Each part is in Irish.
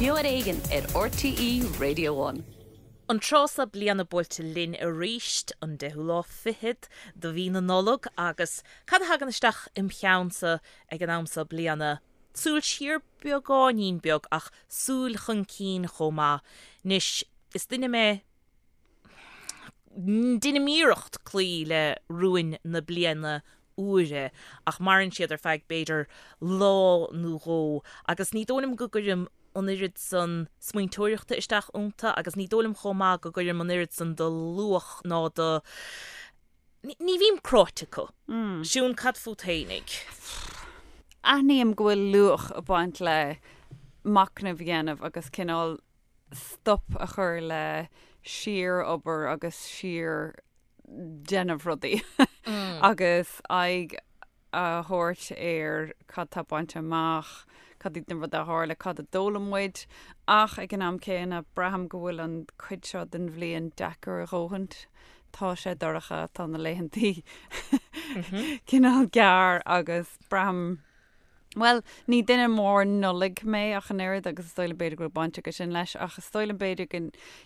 Beo ar Éigean ar RTÉ Radio One. An tráth seo bliana buailte linn arís, an deichiú lá fichead de mhí na Nollag, agus cad a thagann isteach im cheannsa ag an am seo bliana? Súil siar beagáinín beag ach súil chun cinn chomh maith. Anois, is duine mé, Deinim iarracht cloí le rúin na bliana úire ach maireann siad ar feadh b'fhéidir lá nó dhó agus ní dóigh liom go gcuirim an oiread san smaointeoireachta isteach iontu agus ní dóigh liom chomh maith go gcuirim an oiread san de luach ná de Ní bhím cráite acu. Siún, cad fút fhéinig? Aithním go bhfuil luach ag baint le machnamh a dhéanamh agus cineál stop a chur le síor-obair agus síor-déanamh rudaí agus aghaidh a thabhairt ar cad tá bainte amach, cad iad na rudaí a tharla, cad a d'fhoghlaim muid. Ach ag an am céanna, braithim go bhfuil an chuid seo den bhliain deacair a dhóthaint. Tá sé dorcha, tá na laethantaí cineál gearr agus braithim, Bhuel, ní duine mór Nollag mé ach an oiread agus is dóigh liom b'fhéidir go bhfuil baint aige sin leis ach is dóigh liom b'fhéidir go,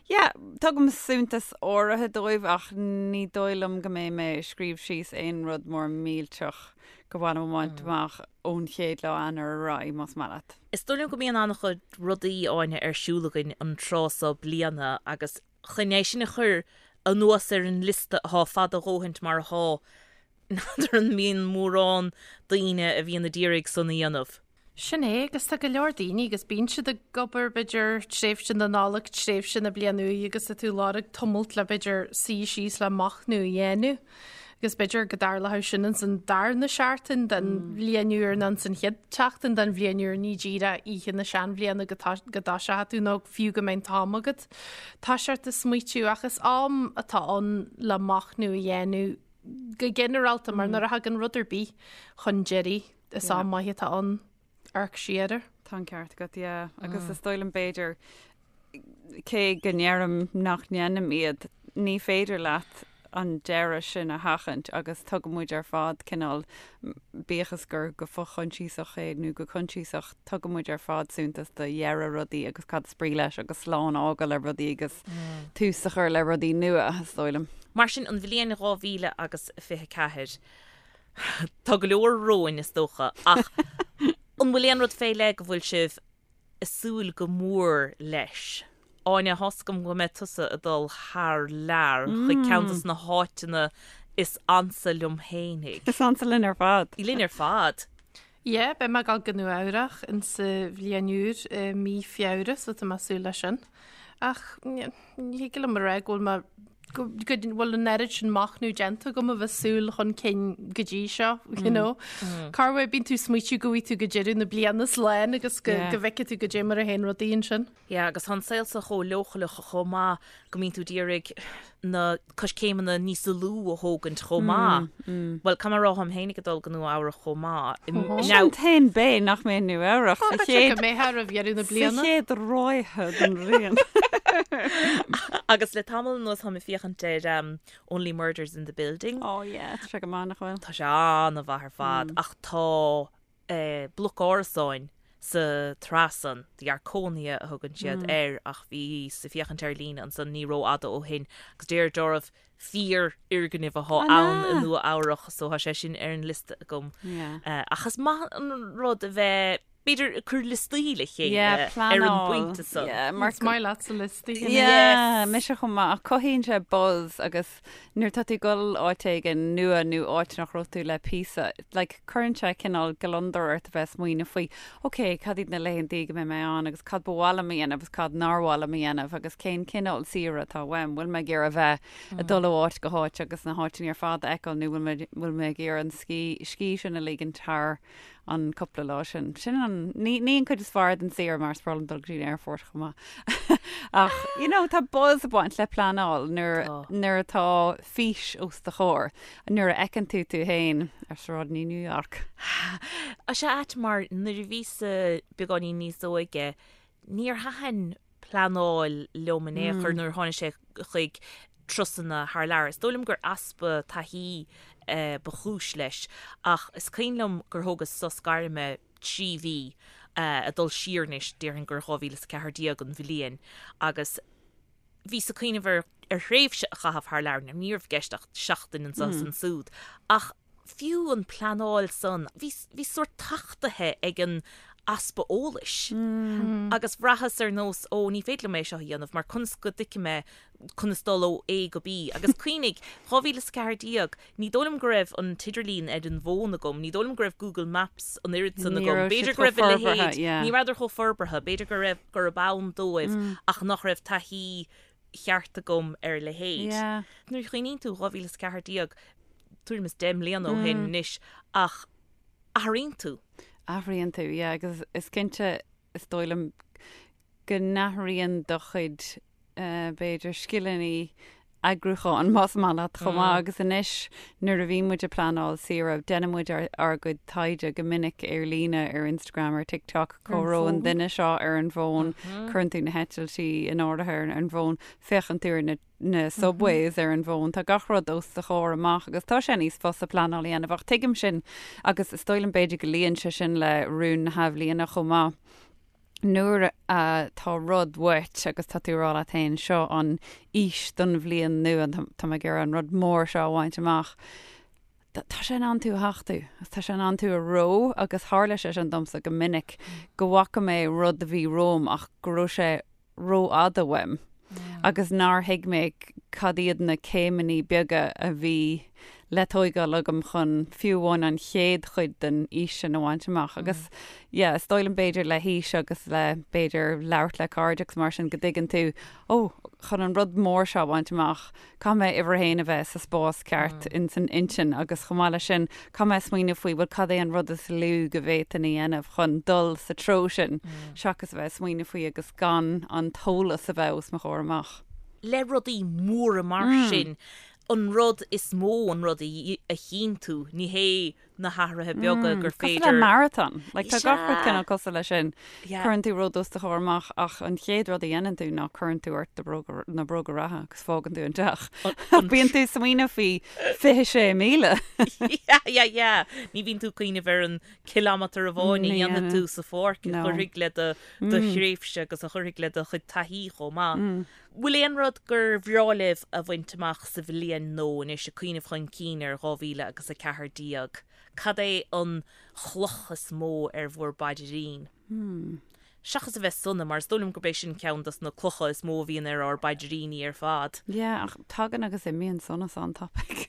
yeah, tugaim suntas áirithe dóibh ach ní dóigh liom go mbeidh mé ag scríobh síos aon rud mór millteach gur mhaith liom a bhaint amach ón chéad lá Eanáir ar aghaidh, más maith leat. Is dóigh liom go mbíonn an-chuid rudaí, Áine, ar siúl againn an tráth seo bliana agus chun é sin a chur anuas ar an liosta atá fada a dhóthaint mar atá, N'fheadar an mbíonn mórán daoine a bhíonn a d'iarraidh san a dhéanamh. Sin é, agus tá go leor daoine agus bíonn siad ag obair b'fhéidir tréimhse na Nollag, tréimhse na bliana úi agus tá tú ag lorg tamalt le b'fhéidir suí síos le machnamh a dhéanamh. Agus b'fhéidir go dtarlódh sin ins an darna seachtain den bhliain úr nó ins an chéad tseachtain den bhliain úr, ní díreach oíche na seanbhliana go dtoiseoidh tú nó fiú go mbeidh an t-am agat toiseacht ag smaoitiú ach is am atá ann le machnamh a dhéanamh go ginearálta, mar nuair a thagann rud ar bith chun deiridh, is am maith atá ann amharc siar air. Tá an ceart agat, yeah. Agus is dóigh liom b'fhéidir, cé go ndeirim nach ndéanaim iad, ní féidir leat an deireadh sin a sheachaint agus tugann muid ar fad cineál, bíodh is gur go fo-choinsiasach é nó go coinsiasach, tugann muid ar fad suntas do dheireadh rudaí agus cad is brí leis agus slán a fhágáil le rudaí agus tús a chur le rudaí nua, is dóigh liom. Mar sin, an bhliain 2000 agus 24, tá go leor romhainn, is dócha, ach an bhfuil aon rud fé leith go bhfuil sibh ag súil go mór leis? Áine, tá's agam go mbeidh tusa ag dul thar lear chuig ceann de na háiteanna is ansa liom fhéinig. Is ansa linn ar fad. Linn ar fad. Yeah, beidh mé ag dul go Nua Eabhrach insa bhliain úr i mí Feabhra so tá mé ag súil leis sin. Ach ní thig liom a rá go bhfuil mé go bhfuil an oiread sin machnamh déanta agam a bheith súil chun cinn go dtí seo, you know. Corruair bíonn tú ag smaoitiú go bhfaighidh tú go deireadh na bliana slán agus go bhfeicfidh tú goidé mar a théann rudaí ansin. Yeah, agus tá an saol seo chomh leochaileach chomh maith go mbíonn tú d'iarraidh na coiscéimeanna níos lú a thógaint chomh maith. Bhuel, caithfidh mé a rá, táim féinig ag dul go Nua Eabhrach chomh maith. Mise an t-aon bhean nach mbeidh i Nua Eabhrach sa chéad... Go mbeidh roimh dheireadh na bliana. Sa chéad ráithe den bhliain. Agus le tamall anuas táim ag féachaint ar Only Murders in the Building. Oh yeah, tá sé go maith nach bhfuil? Tá sé an-mhaith ar fad, ach tá bloc árasáin sa tsraith san, The Arconia a thugann siad air ach bhíos ag féachaint ar líne ansan ní rófhada ó shin agus deir gurbh fíorfhoirgneamh athá ann i Nua Eabhrach so tá sé sin ar an liosta agam. Ach is maith an rud a bheith b'fhéidir ag cur liostaí le chéile ar an bpointe san. Is maith leatsa liostaí. Yeah, mise chomh maith ach cothaíonn sé buzz agus Nuair atá tú ag dul áit éigin nua nó áit nach raibh tú le píosa, like, cuireann sé cineál gliondar ort a bheith ag smaoineamh faoi, ok, cad iad na laethantaí go mbeidh mé ann agus cad ba mhaith liom a dhéanamh agus cad nár mhaith liom a dhéanamh agus cén cineál saoire atá uaim, bhfuil mé ag iarraidh a bheith ag dul ó áit go háit agus na háiteanna ar fad a fheiceáil nó bhfuil mé, bhfuil mé ag iarraidh an scíth, scíth sin a ligint thar an cúpla lá sin. Sin an, ní, ní an cuid is fearr den saoire mar is breá liom dul go dtí an aerfort chomh maith. Ach, you know, tá buzz ag baint le pleanáil nuair, Tá. nuair atá fís os do chomhair, nuair a fheiceann tú tú féin ar sráideanna New York. Tá sé ait mar nuair a bhíos-sa beagáinín níos óige, níor thaitin pleanáil liom in aon chor nuair a tháinig sé chuig turasanna thar lear. Is dóigh liom gur easpa taithí ba chúis leis ach is cuimhin liom gur thógas sos gairme 3 mhí. Ag dul siar anois, déarfainn gur 2014 an bhliain, agus bhíos ag cuimhneamh ar ar thréimhse a chaitheamh thar lear, ní raibh i gceist ach seachtain anso is ansúd, ach fiú an pleanáil san, bhí bhí sórt tachtaithe ag an easpa eolais agus bhraitheas ar nós, ó ní féidir liom é seo a dhéanamh mar conas go dtuigfidh mé conas dul ó A go B. Agus cuimhnigh, 2014, ní dóigh liom go raibh an t-idirlíon ar an bhfón agam, ní dóigh liom go raibh Google Maps an oiread san agam, b'fhéidir go raibh a leithéid, ní rabhadar chomh forbartha, b'fhéidir go raibh, gurb ann dóibh ach nach raibh taithí cheart agam ar a leithéid. Nuair a chuimhníonn tú, 2014, tuairim is 10 mbliana ó shin anois, ach athraíonn tú. Athraíonn tú, yeah, agus is cinnte, is dóigh liom, go n-athraíonn do chuid, b'fhéidir, scileanna eagrúcháin, más maith leat, chomh maith. Agus anois, nuair a bhíonn muid ag pleanáil saoire, déanann muid ár gcuid taighde go minic ar líne, ar Instagram, ar TikTok, cá raibh an duine seo ar an bhfón, cuireann tú na heitiltí in áirithe ar an bhfón, féachann tú ar na na subways ar an bhfón, tá gach rud os do chomhair amach agus tá sé níos fusa pleanáil a dhéanamh ach tuigim sin agus is dóigh liom b'fhéidir go luíonn sé sin le rún na hathbhliana chomh maith. Nuair atá rud uait agus tá tú ag rá leat féin, seo an fhís don bhliain nua, tá mé ag iarraidh an rud mór seo a bhaint amach, tá sé in ann tú a thachtú, tá sé in ann tú a reo agus tharla sé sin domsa go minic go bhfaca mé rud a bhí romham ach go raibh sé rófhada uaim agus nár thuig mé cad iad na céimeanna beaga a bhí le tóigeáil agam chun fiú amháin an chéad chuid den fhís sin a bhaint amach. Agus yeah, is dóigh liom b'fhéidir le haois agus le b'fhéidir labhairt le cairde agus mar sin go dtuigeann tú, ó, chun an rud mór seo a bhaint amach, Caithfidh mé uimhir a haon a bheith sa spás ceart ins an intinn agus chomh maith leis sin, caithfidh mé smaoineamh faoi, bhuel, cad é an rud is lú go bhféadfainn a dhéanamh chun dul sa treo sin, seachas a bheith ag smaoineamh faoi agus gan an t-eolas a bheith os mo chomhair amach. Le rudaí móra mar sin, an rud is mó an rud a chinntiú, ní hé na hathruithe beaga gur féidir. Cosúil le marathon. Like, tá gach rud cineál cosúil leis sin. Cuireann tú rud os do chomhair amach ach an chéad rud a dhéanann tú ná cuireann tú ort do bhróga, na bróga reatha agus fágann tú an teach. Bíonn tú ag smaoineamh faoi 26 míle. Yeah, yeah, yeah. Ní bhíonn tú ag cuimhneamh ar an cileámatar amháin a dhéanfaidh tú sa pháirc a chuirfidh le do do thréimhse agus a chuirfidh le do chuid taithí chomh maith. Bhfuil aon rud gur bhreá libh a bhaint amach sa bhliain nua anois, ag cuimhneamh chun cinn ar 2014? Cad é an chloch is mó ar bhur bpaidrín? Seachas a bheith sona, mar is dóigh liom gurb é sin ceann dos na clocha is mó a bhíonn ar ár bpaidríní ar fad. Yeah, ach tagann agus imíonn sonas an-tapaidh.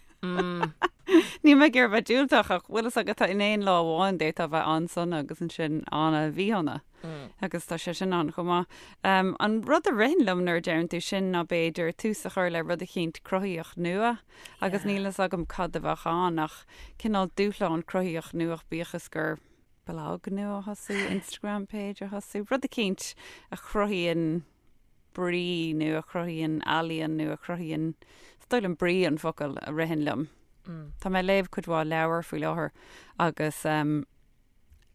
Níl mé ag iarraidh bheith diúltach ach bhfuil fhios agat in aon lá amháin d'fhéadfá a bheith an-sona agus ansin an-mhíshona. Agus tá sé sin ann chomh maith. An rud a ritheann liom nuair a deireann tú sin ná b'fhéidir tús a chur le rud eicínt cruthaíoch nua agus níl fhios agam cad a bheadh ann ach cineál dúshlán cruthaíoch nua bíodh is gur blag nua a thosú, Instagram page a thosú, rud eicínt a chruthaíonn brí nó a chruthaíonn ealaíon nó a chruthaíonn, is dóigh liom brí an focal a ritheann liom. Tá mé ag léamh cuid mhaith leabhar faoi láthair agus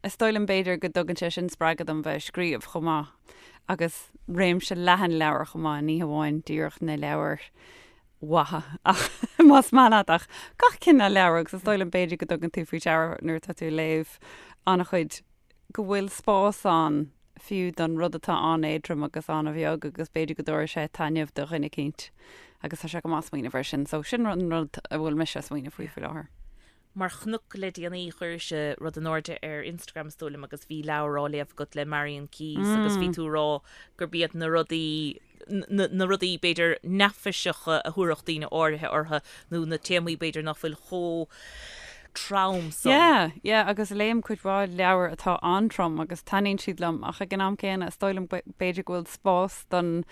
is dóigh liom b'fhéidir go dtugann sé sin spreagadh dom bheith ag scríobh chomh maith agus réimse leathan leabhar chomh maith, ní hamháin díreach na leabhair mhaithe ach más maith leat ach gach cineál leabhar agus is dóigh liom b'fhéidir go dtugann tú faoi deara nuair atá tú ag léamh an-chuid go bhfuil spás ann fiú don rud atá an-éadrom agus an-bheag agus b'fhéidir go dtabharfaidh sé taitneamh do dhuine eicínt agus tá sé go maith smaoineamh air sin. So sin an rud a bhfuil mise ag smaoineamh faoi faoi láthair. Mar chnoc le déanaí chuiris rud in airde ar Instagram is dóigh liom agus bhí leabhar á léamh agat le Marian Keyes agus bhí tú ag rá gurb iad na rudaí na rudaí b'fhéidir neafaiseacha a thabharfadh daoine áirithe orthu nó na téamaí b'fhéidir nach bhfuil chomh trom san. Yeah, yeah, agus léim cuid mhaith leabhar atá an-trom agus taitníonn siad liom ach ag an am céanna is dóigh liom b'fhéidir go bhfuil spás don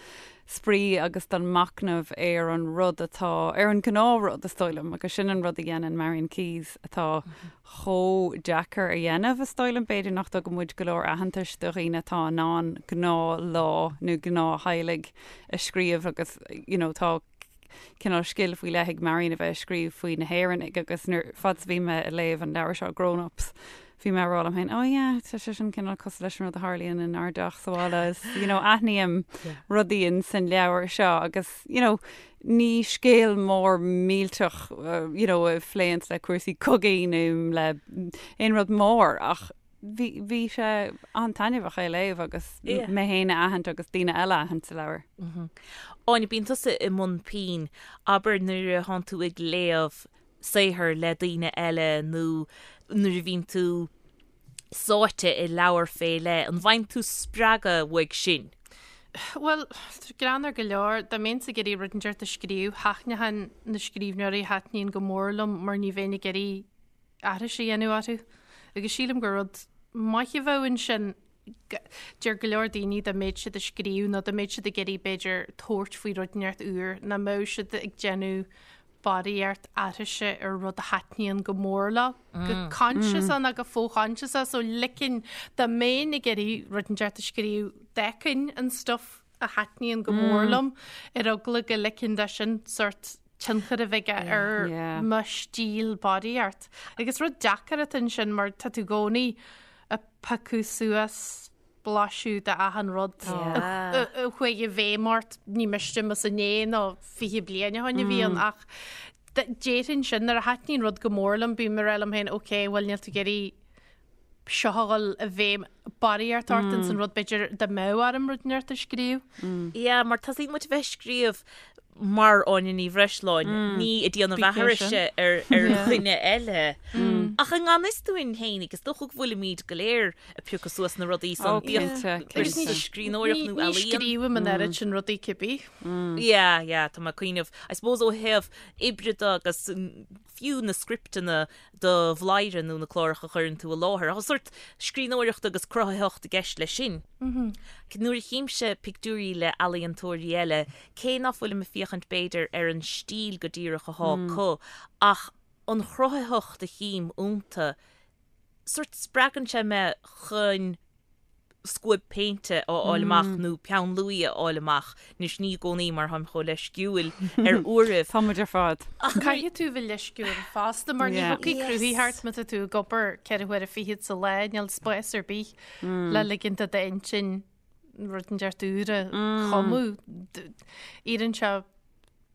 spraoi agus don machnamh ar an rud atá, ar an ghnáthrud is dóigh liom agus sin an rud a dhéanann Marian Keyes atá chomh deacair a dhéanamh, is dóigh liom. B'fhéidir nach dtugann muid go leor aitheantais do dhaoine atá in ann gnáthlá nó gnáth-theaghlaigh a scríobh agus you know tá cineál scil faoi leith ag Marian a bheith ag scríobh faoi na hÉireannaigh agus nuair fad is a bhí mé ag léamh an leabhar seo Grown Ups bhí mé ag rá liom féin oh yeah tá sé sin cineál cosúil leis an rud a tharlaíonn inár dteach sa bhaile is you know aithním rudaí in san leabhar seo agus you know ní scéal mór millteach you know a phléanns le cúrsaí cogaidh nó le aon rud mór ach. bhí bhí sé an-taitneamhach é a léamh agus mé féin a aithint agus daoine eile a aithint sa leabhar. Áine, bíonn tusa i mbun pinn, abair nuair a thánn tú ag léamh saothar le daoine eile nó nuair a bhíonn tú sáite i leabhar fé leith, an bhfaigheann tú spreagadh uaidh sin? Bhuel, greannmhar go leor, dá mbeinnse ag iarraidh rud inteacht a scríobh, thaitneochainn na scríbhneoirí a thaitníonn go mór liom mar ní bheinn ag iarraidh aithris a dhéanamh orthu. Agus sílim gur rud maith a bheadh ansin. Deir go leor daoine dá mbeadh siad ag scríobh nó dá mbeadh siad ag iarraidh b'fhéidir tabhairt faoi rud inteacht úr, nach mbeadh siad ag déanamh barraíocht aithrise ar rud a thaitníonn go mór leo, go coinsiasach nó go fo-choinsiasach, so ligfinn dá mbeinn ag iarraidh rud inteacht a scríobh, d'fheicfinn an stuff a thaitníonn go mór liom ar eagla go ligfinn dó sin sórt tionchar a bheith aige ar mo stíl barraíocht. Agus rud deacair atá ansin mar tá tú i gcónaí ag piocadh suas blaiseadh de achan rud a chuaigh i bhfeidhm ort, ní miste más inné nó 20 bliain ó shin a bhí ann ach déarfainn sin nuair a thaitníonn rud go mór liom bím ag rá liom féin ok bhuel níl tú ag iarraidh seo a dhul i bhfeidhm barraíocht ort ins an rud b'fhéidir dá mbeadh orm rud inteacht a scríobh. Yeah, mar tosaíonn muid a bheith ag scríobh mar Áine Ní Bhreisleáin, ní ag déanamh aithrise ar ar dhuine eile. Ach i ngan fhios dúinn féinig, is dócha go bhfuilimid go léir ag piocadh suas na rudaí san, bíodh Agus scríbhneoireacht nó ní ealaíon. scríobhaim an oiread sin rudaí cibé. Yeah, yeah, tá mé ag cuimhneamh, I suppose ó thaobh oibre de agus fiú na scripteanna do Bhladhaire nó na cláracha a chuireann tú i láthair. Tá sórt scríbhneoireacht agus cruthaitheacht i gceist leis sin. Nuair a chímse pictiúirí le ealaíontóirí eile, cé ná fuilim ag féachaint b'fhéidir ar an stíl go díreach athá acu, ach an chruthaitheacht a chím iontu, sórt spreagann sé mé chun scuab péinte a fháil amach nó peann luaidhe a fháil amach. Anois ní i gcónaí mar táim chomh leisciúil ar uairibh. Tá muid ar fad. Ach caithfidh tú bheith leisciúil fosta mar ní thiocfaidh cruthaitheacht má tá tú ag obair 4 huaire fichead sa lá, níl spás ar bith le ligint do d'intinn rud inteacht úr a chumadh. Iarrann sé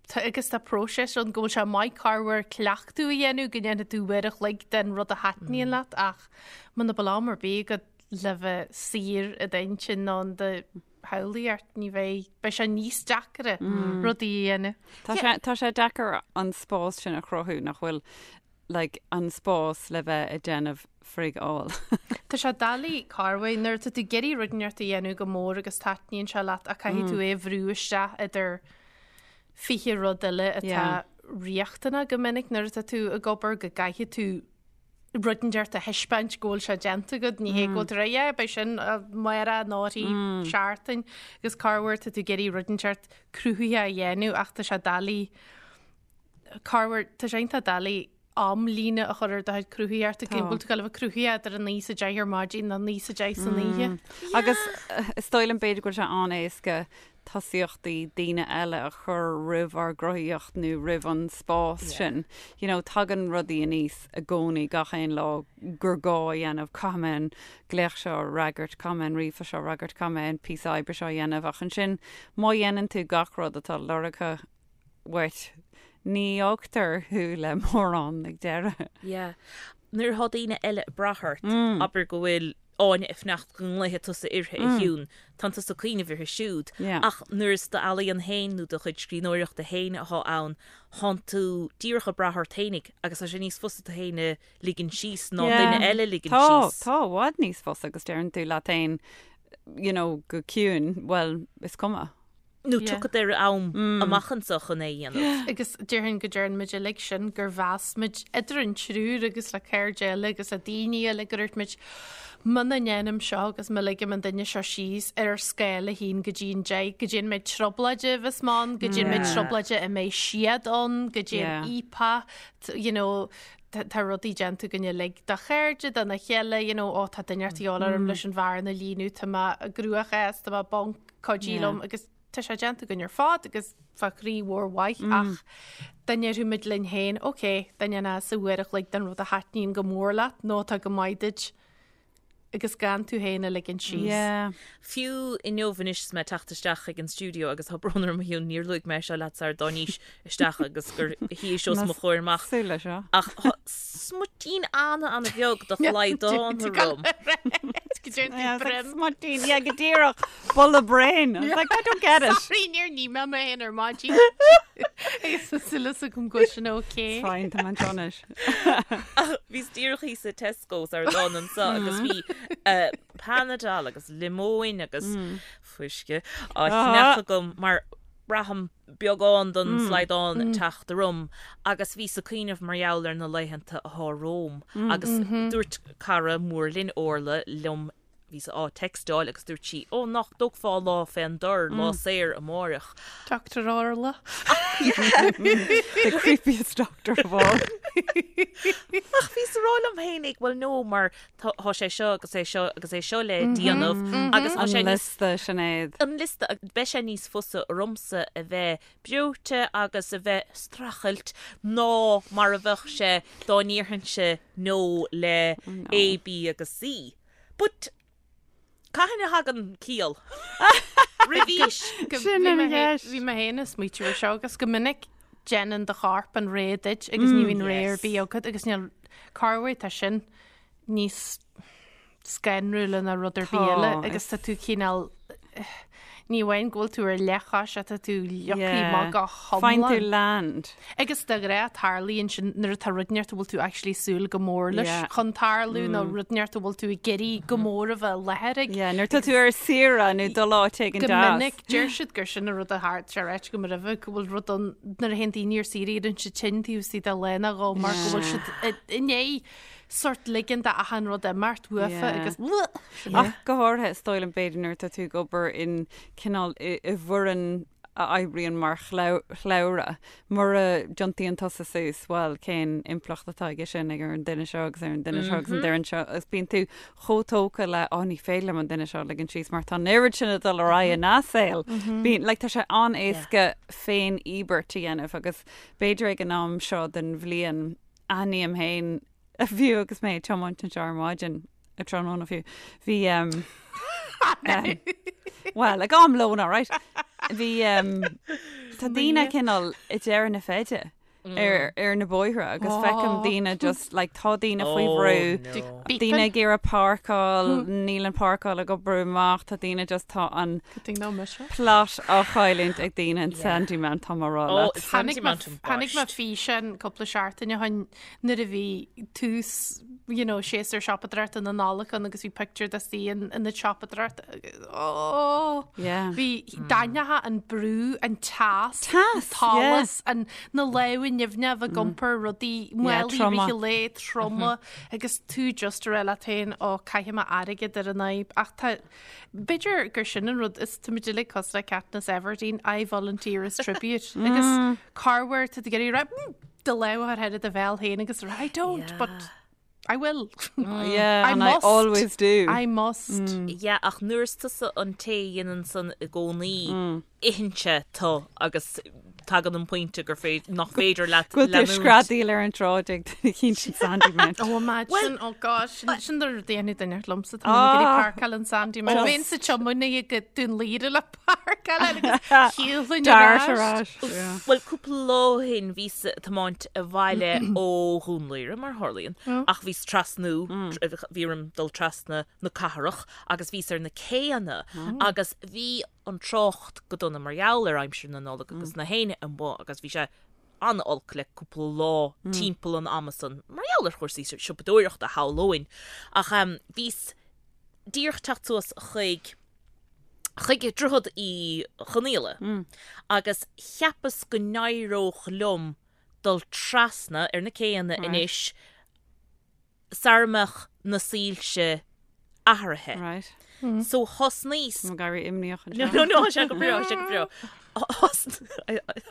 Tá agus tá próiseas ann go bhfuil sé maith corruair cleachtadh a dhéanamh go ndéanfaidh tú uair a chloig den rud a thaitníonn leat ach muna bhfuil am ar bith agat le bheith saor i d'intinn nó in do shamhlaíocht ní bheidh, beidh sé níos deacra rudaí a dhéanamh. Tá sé, tá sé deacair an spás sin a chruthú nach bhfuil like an spás le bheith ag déanamh frig all. Tá sé doiligh corruair nuair atá tú ag iarraidh rud inteacht a dhéanamh go mór agus taitníonn sé leat ach caithfidh tú é a bhrú isteach idir 20 rud eile atá riachtanach go minic nuair atá tú ag obair go gcaithfidh tú rud inteacht a thaispeáint go bhfuil sé déanta agat, ní hé go bhfuil tú ag rá yeah beidh sin amárach nó i seachtain agus corruair tá tú ag iarraidh rud inteacht cruthaitheach a dhéanamh ach tá sé doiligh Corruair, tá sé iontach doiligh amlíne a chur ar do chuid cruthaitheachta, go bhfuil tú ag gabháil a bheith cruthaitheach idir a 9 is a 10 ar maidin nó 9 is a 10 san oíche. Agus is dóigh liom b'fhéidir go bhfuil sé an-éasca tosaíochtaí daoine eile a chur roimh ár gcruthaíocht nó roimh an spás sin. You know, tagann rudaí aníos i gcónaí gach aon lá gur gá a dhéanamh, caithfidh mé an glaoch seo a fhreagairt, caithfidh mé an ríomhphost seo a fhreagairt, caithfidh mé an píosa oibre seo a dhéanamh ach ansin má dhéanann tú gach rud atá lorgtha uait. Ní fhágtar thú le mórán ag deireadh. Yeah. Nuair atá daoine eile ag brath ort, abair go bhfuil Áine ag fanacht go nglaofaidh tusa uirthi a Shiún, tánn tusa ag cuimhneamh uirthi siúd. Ach nuair is d'ealaíon féin nó do chuid scríbhneoireachta féin atá ann, tánn tú díreach ag brath ort féinig agus tá sé níos fusa tú féin a ligean síos ná duine eile a ligean síos. Tá, tá, i bhfad níos fusa agus deireann tú leat féin, you know, go ciúin, bhuel, is cuma. Nó tiocfad ar am amach anseo chun é a dhéanamh. Agus déarfainn go dtearn muid uilig sin, gur mheas muid idir an triúr agus le cairde eile agus le daoine eile go ndúirt muid, muna ndéanaim seo agus má ligim an duine seo síos ar ar scála 1 go dtí an 10, goidé an méid trioblóide a bheas mé ann, goidé an méid trioblóide a mbeidh siad ann, goidé an íopa, you know, tá rudaí déanta againn uilig do chairde, dona chéile, you know, ó tá duine ort a dhíobháil orm leis an bhearna a líonadh, tá mé i gcruachás, tá mé bonk, cuidigh liom agus tá sé déanta againn ar fad agus fá chroí mhór mhaith ach dá ndéarfadh muid linn féin, ok, dá ndéanfá sa uair a chloig den rud a thaitníonn go mór leat nó atá go maith duit. agus gan tú féin a ligean síos. Yeah. Fiú inniu anois is mé ag teacht isteach chuig an stiúideo agus tá brón orm a Shiún, níor luaigh mé seo leat sar dtáinís isteach agus gur shuíos os mo chomhair amach. Súil leis seo. Ach tá smuitín ana-ana-bheag de shlaghdán orm. Go dtéann tú Yeah, it's like broim. smuitín, yeah, go díreach. Bulla brain. I was like, I don't get it. Sorry, níor nigh mé mé féin ar maidin. Agus tá súil agam go bhfuil sin okay. It's fine, tá mé anseo anois. Ach bhíos díreach thíos i Tesco's ar an anso agus bhí Panadol agus liomóin agus fuisce á cheannach agam mar braithim beagán don slaghdán ag teacht orm agus bhíos ag cuimhneamh mar gheall ar na laethanta atá romham agus dúirt cara mór linn Orla liom Bhíos á textáil agus dúirt sí, Ó, nach dtógfá lá fén dtor, lá saor amáireach. Doctor Orla. The creepiest doctor of all. Ach bhíos ag rá liom fhéinig, well no, mar tá sé seo agus é seo agus é seo le déanamh agus tá sé An liosta, Sinéad. An liosta, beidh sé níos fusa ormsa a bheith breoite agus a bheith streachailt ná mar a bheadh sé dá ndéarfainnse no le A, B agus C. But cathain a thagann ciall? Roimhís? Sin an cheist. Bhí mé féin ag smaoitiú ar seo agus go minic déanann do chorp an rogha duit agus ní bhíonn rogha ar bith agat agus níl corruair tá sin níos scanrúla ná rud ar bith eile agus tá tú cineál Ní amháin go bhfuil tú ar leathchois ach tá tú leagtha amach go hiomlán. Faigheann tú land. Agus de ghnáth tarlaíonn sin nuair atá rud inteacht a bhfuil tú actually súil go mór leis chun tarlú nó rud inteacht a bhfuil tú ag iarraidh go mór a bheith i láthair ag. Yeah, nuair atá tú ar saoire nó dul áit éigin deas. Go minic, deir siad gur sin an rud a tharla, sé ráite agam roimhe, go bhfuil rud ann nuair a théann daoine ar saoire éiríonn siad tinn taobh istigh de lá nó dhó mar go bhfuil siad i ndiaidh sort ligean d'achan rud imeacht uafa agus Ach go háirithe, is dóigh liom, b'fhéidir nuair atá tú ag obair in cineál i bhfoireann a oibríonn mar shlabhra, mura dtiontaíonn tusa suas, bhuel, cén impleacht atá aige sin ag ar an duine seo agus ar an duine seo agus an duine seo agus bíonn tú chomh tógtha le, oh, ní féidir liom an duine seo a ligean síos mar tá an oiread sin ag dul ar aghaidh ina saol. Bíonn, like, tá sé an-éasca féin-íobairt a dhéanamh agus b'fhéidir ag an am seo den bhliain, aithním féin, fiú agus mé ag tiomáint anseo ar maidin, ag tráthnóna fiú, bhí um, um, well, ag am lóin, all right. Bhí um, tá daoine cineál ag deireadh na feide ar, ar na bóithre agus feicim daoine just like tá daoine faoi Oh, bhrú, no. daoine ag iarraidh páirceáil, níl an páirceáil ag obair amach, tá daoine just tá an Good thing no mise. plot á chailliúint ag daoine in Sandymount, tá mé ag rá Oh, leat. Tháinig Sandymount an tháinig mé boist. físeán cúpla seachtain ó shin nuair a bhí tús you know, séasúr siopadóireachta na Nollag ann agus bhí pictiúr de sí in in na siopadóireachta agus oh! Yeah. Bhí d'aithneofá an brú, an teas, Teas, an t-allas, an na lámha nimhneacha a bheith ag iompar rudaí, Yeah, málaí troma. rith an lae, troma agus tú just ag rá leat féin, ó caithfidh mé airgead ar an fhadhb ach tá B'fhéidir gur sin an rud is táimid uilig cosúil le Katniss Everdeen, I volunteer as tribute. Agus corruair tá tú ag iarraidh rá, mm, do lámh a chur thar do bhéal féin agus rá, I don't, but I will. Yeah, I and I must. always do. I must. Yeah, ach nuair is tusa an té a dhéanann san i gcónaí, itheann sé tú agus tagann an pointe gur féidir, nach féidir leat Go bhfuil tú leanúint. screadaíl ar an tsráid ag duine eicínt in Sandymount. Oh, imagine, oh gosh, sin sin do rud a dhéanfaidh duine liomsa, tá mé ag iarraidh Ah. páirceáil in Sandymount. Just- Bheinn sa tiománaí go Dún Laoghaire le páirceáil agus shiúlfainn ar Dart ar ais. ais. Yeah. Bhuel, cúpla lá ó shin bhíos ag tiomáint abhaile ó Dhún Laoghaire, mar a tharlaíonn, ach bhíos trasnú, bhí orm dul trasna na cathrach agus bhíos ar na céanna agus bhí an trácht go dona mar gheall ar aimsir na Nollag agus na héinne amuigh agus bhí sé an-olc le cúpla lá timpeall an ama san mar gheall ar chúrsaí siopadóireachta shamhlóinn. Ach bhíos díreach teacht suas chuig chuig Droichead Uí Chonaola agus cheapas go n-éireodh liom dul trasna ar na céanna anois sara mbeadh na soilse athraithe. Right. So thosnaíos. Tá mé ag éirí imníoch No, anseo. no, no, tá sé go breá, tá sé go breá.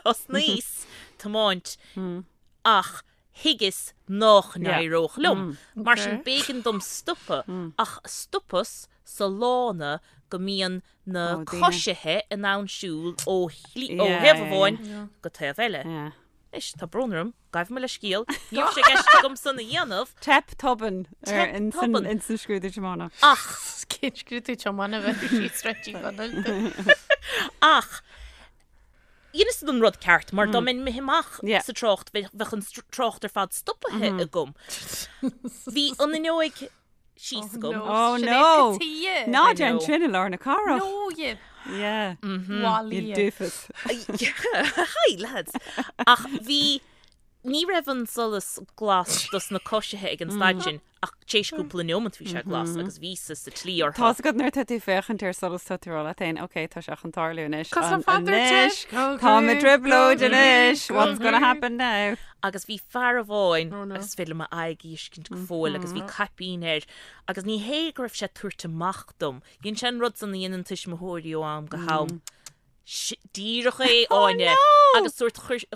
Thosnaíos tiomáint ach thuigeas nách n-éireodh liom. Mar sin b'éigean dom stopadh ach stopas sa lána go mbíonn na Ó, daoine. coisithe in ann siúl ó shlí, ó Yeah, thaobh yeah, amháin go taobh eile. Yeah. Anois, tá brón orm, gabh mo leithscéal, ní raibh sé i gceist agam san a dhéanamh. Teip tobann ar tobann in san scrúdú tiomána. Ach! Cén scrúdú tiomána a bheith síos Sráid Uí Chonaill? Ach! Dheineas an rud ceart, mar dá mbeinn imithe amach sa trácht, bheadh an trácht ar fad stopaithe agam. Bhí an fhuinneoig síos agam. Oh no! Ná déan sin i lár na cathrach. No, you. Yeah. You doofus. Hi, lads. Ach bhí, ní raibh an solas glas dos na coisithe ag an staid sin, ach tar éis cúpla neomant bhí sé glas agus bhíos-sa sa tslí orthu. Tá's agat nuair atá tú ag féachaint ar solas tá tú ag rá leat féin, ok, tá sé chun tarlú anois. Anois, táim i dtrioblóid anois, what's gonna happen now? Agus bhí fear amháin, agus is féidir liom a aghaidh a fheiscint go fóill, agus bhí caipín air, agus ní hé go raibh sé ag tabhairt amach dom, dhein sé an rud san a dhéanann tuismitheoirí ó am go ham, díreach é, Áine, agus sórt chroith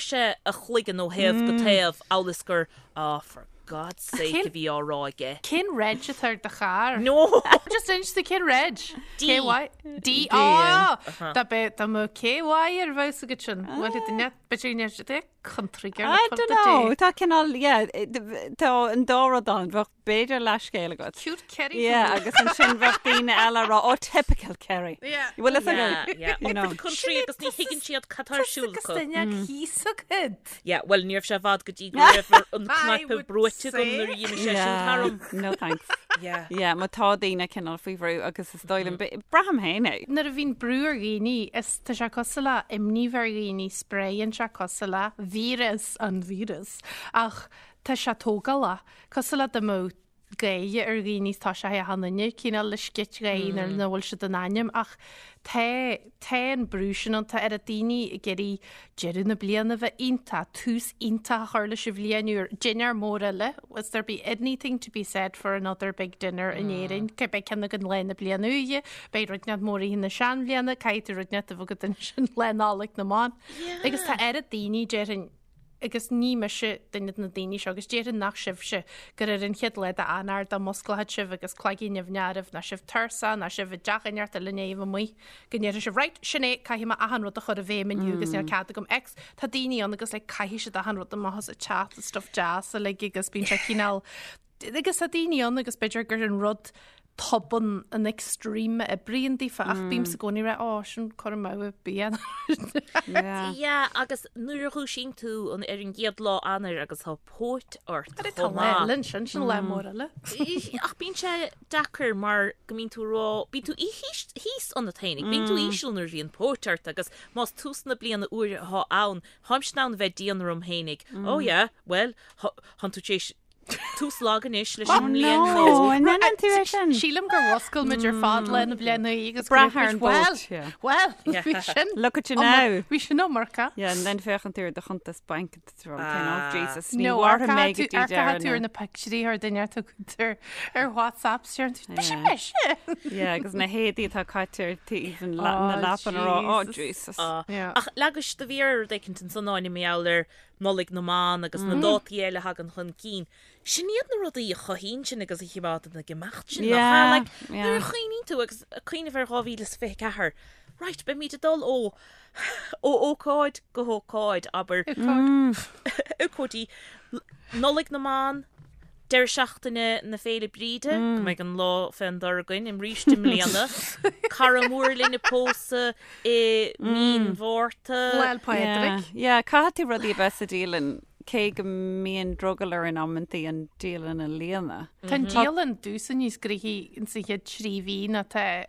sé a chloigeann ó thaobh go taobh, amhail is gur, ah, for God's sake a bhí á rá aige. Cén reg atá ar do charr? No! Just inis domh cén reg? D. KY? D. Ah! Dá mbeadh dá mbeadh KY ar bheadh agat sin. Bhuel, duine, b'fhéidir go ndéarfadh country girl I don't know, tá cineál, yeah, tá an dá rud ann, bheadh b'fhéidir leathscéal agat. Cute Kerry. Yeah, agus ansin bheadh daoine eile ag rá, oh, typical Kerry. Yeah. Bhfuil fhios agat? Yeah, yeah. You know. The country agus ní thuigeann siad cad tá ar siúl Agus acu. duine thíos agat. Yeah, well, ní raibh sé i bhfad go dtí go raibh an cnaipe brúite agam nuair a dh'imigh sé sin tharam. No thanks. Yeah. Yeah, má tá daoine cineál faoi bhrú agus is dóigh liom, braithim féin é. Nuair a bhíonn brú ar dhaoine, is tá sé cosúil le imní bheith ar dhaoine, spréann sé cosúil le víreas, an víreas, ach tá sé tógálach. Cosúil le dá mbeadh gáire ar dhaoine is tá sé achan duine cineál le scit gáire nuair nach bhfuil siad in ainm ach tá tá an brú sin ann, tá oiread daoine ag iarraidh deireadh na bliana a bheith iontach, tús iontach a chur leis an bhliain úr, dinnéar mór eile, is there be anything to be said for another big dinner in Éirinn, beidh ceann againn lá na bliana úire, beidh rud inteacht mór oíche na seanbhliana, caithfidh tú rud inteacht a bheith agat ansin lá Nollag na mBan. Agus tá oiread daoine, déarfainn, agus ní mise duine de na daoine seo, agus déarfainn nach sibhse, gur ar an chéad lá d'Eanáir dá musclódh sibh agus cloigín nimhneach oraibh, ná sibh tuirseach, ná sibh i dteach inteacht eile in éamh amuigh, go ndéarfaidh sibh, right, sin é, caithfidh mé achan rud a chur i bhfeidhm inniu agus níl cead agam X. Tá daoine ann agus like caithfidh siad achan rud amach as an teach, is stuff deas uilig agus bíonn sé cineál, Agus tá daoine ann agus b'fhéidir gur an rud tobann an extreme a oibríonn daofa ach bímse i gcónaí ag rá ó sin cur amú ar bith. Yeah, agus nuair a dhúisíonn tú an ar an gcéad lá Eanáir agus tá póit ort Tá chomh lá maith. eile ansin, sin lá mór eile. Ach bíonn sé deacair mar go mbíonn tú ag rá, bíonn tú thíos thíos ionat féinig, bíonn tú íseal nuair a bhíonn póit ort agus más tús na bliana úire atá ann, táimse in ann a bheith dian orm féinig, oh yeah, well, thánn tú tar éis Tús lag anois leis an mbliain No, an ndéanann tú é sin? Sílim gur mhuscail muid ar fad le na bliana agus Brath ar an bpóit, yeah. Well, bhí sin. Look at you now. Bhí sin iomarca. Yeah, and then féachann tú ar do chuntas bainc and tú ag rá, oh Jesus, ní No, mhairfidh mé go dtí ar deireadh tú ar na... na pictiúirí ar duine atá agat ar WhatsApp, siar tú, mise mise. Yeah, agus na héadaí atá caite ar taobh an la- na Oh, leapan ag rá, oh Jesus. Jesus. Yeah. Ach leagais do mhéar ar rud éicint ansan Áine mar gheall ar Nollaig na mBan agus na dátaí eile a thagann chun cinn. Sin iad na rudaí a chothaíonn sinn agus a chimeádann ag imeacht sinn, nach ea? Like, nuair a chuimhníonn tú agus ag cuimhneamh ar 2024, right, beimid ag dul ó ó ócáid go hócáid, abair, ócáidí, Nollaig na mBan, deireadh seachtaine na Féile Bríde, go mbeidh an lá fén dtor againn arís i mbliana, cara mór linn ag pósadh, i mí an Mhárta. Lá 'le Pádraig. Yeah, caithfidh tú rudaí a bheith sa dialann, cé go mbíonn drogall orainn amantaí an dialann a líonadh. Tá an dialann domhsa níos gnoithí ins an chéad 3 mhí ná tá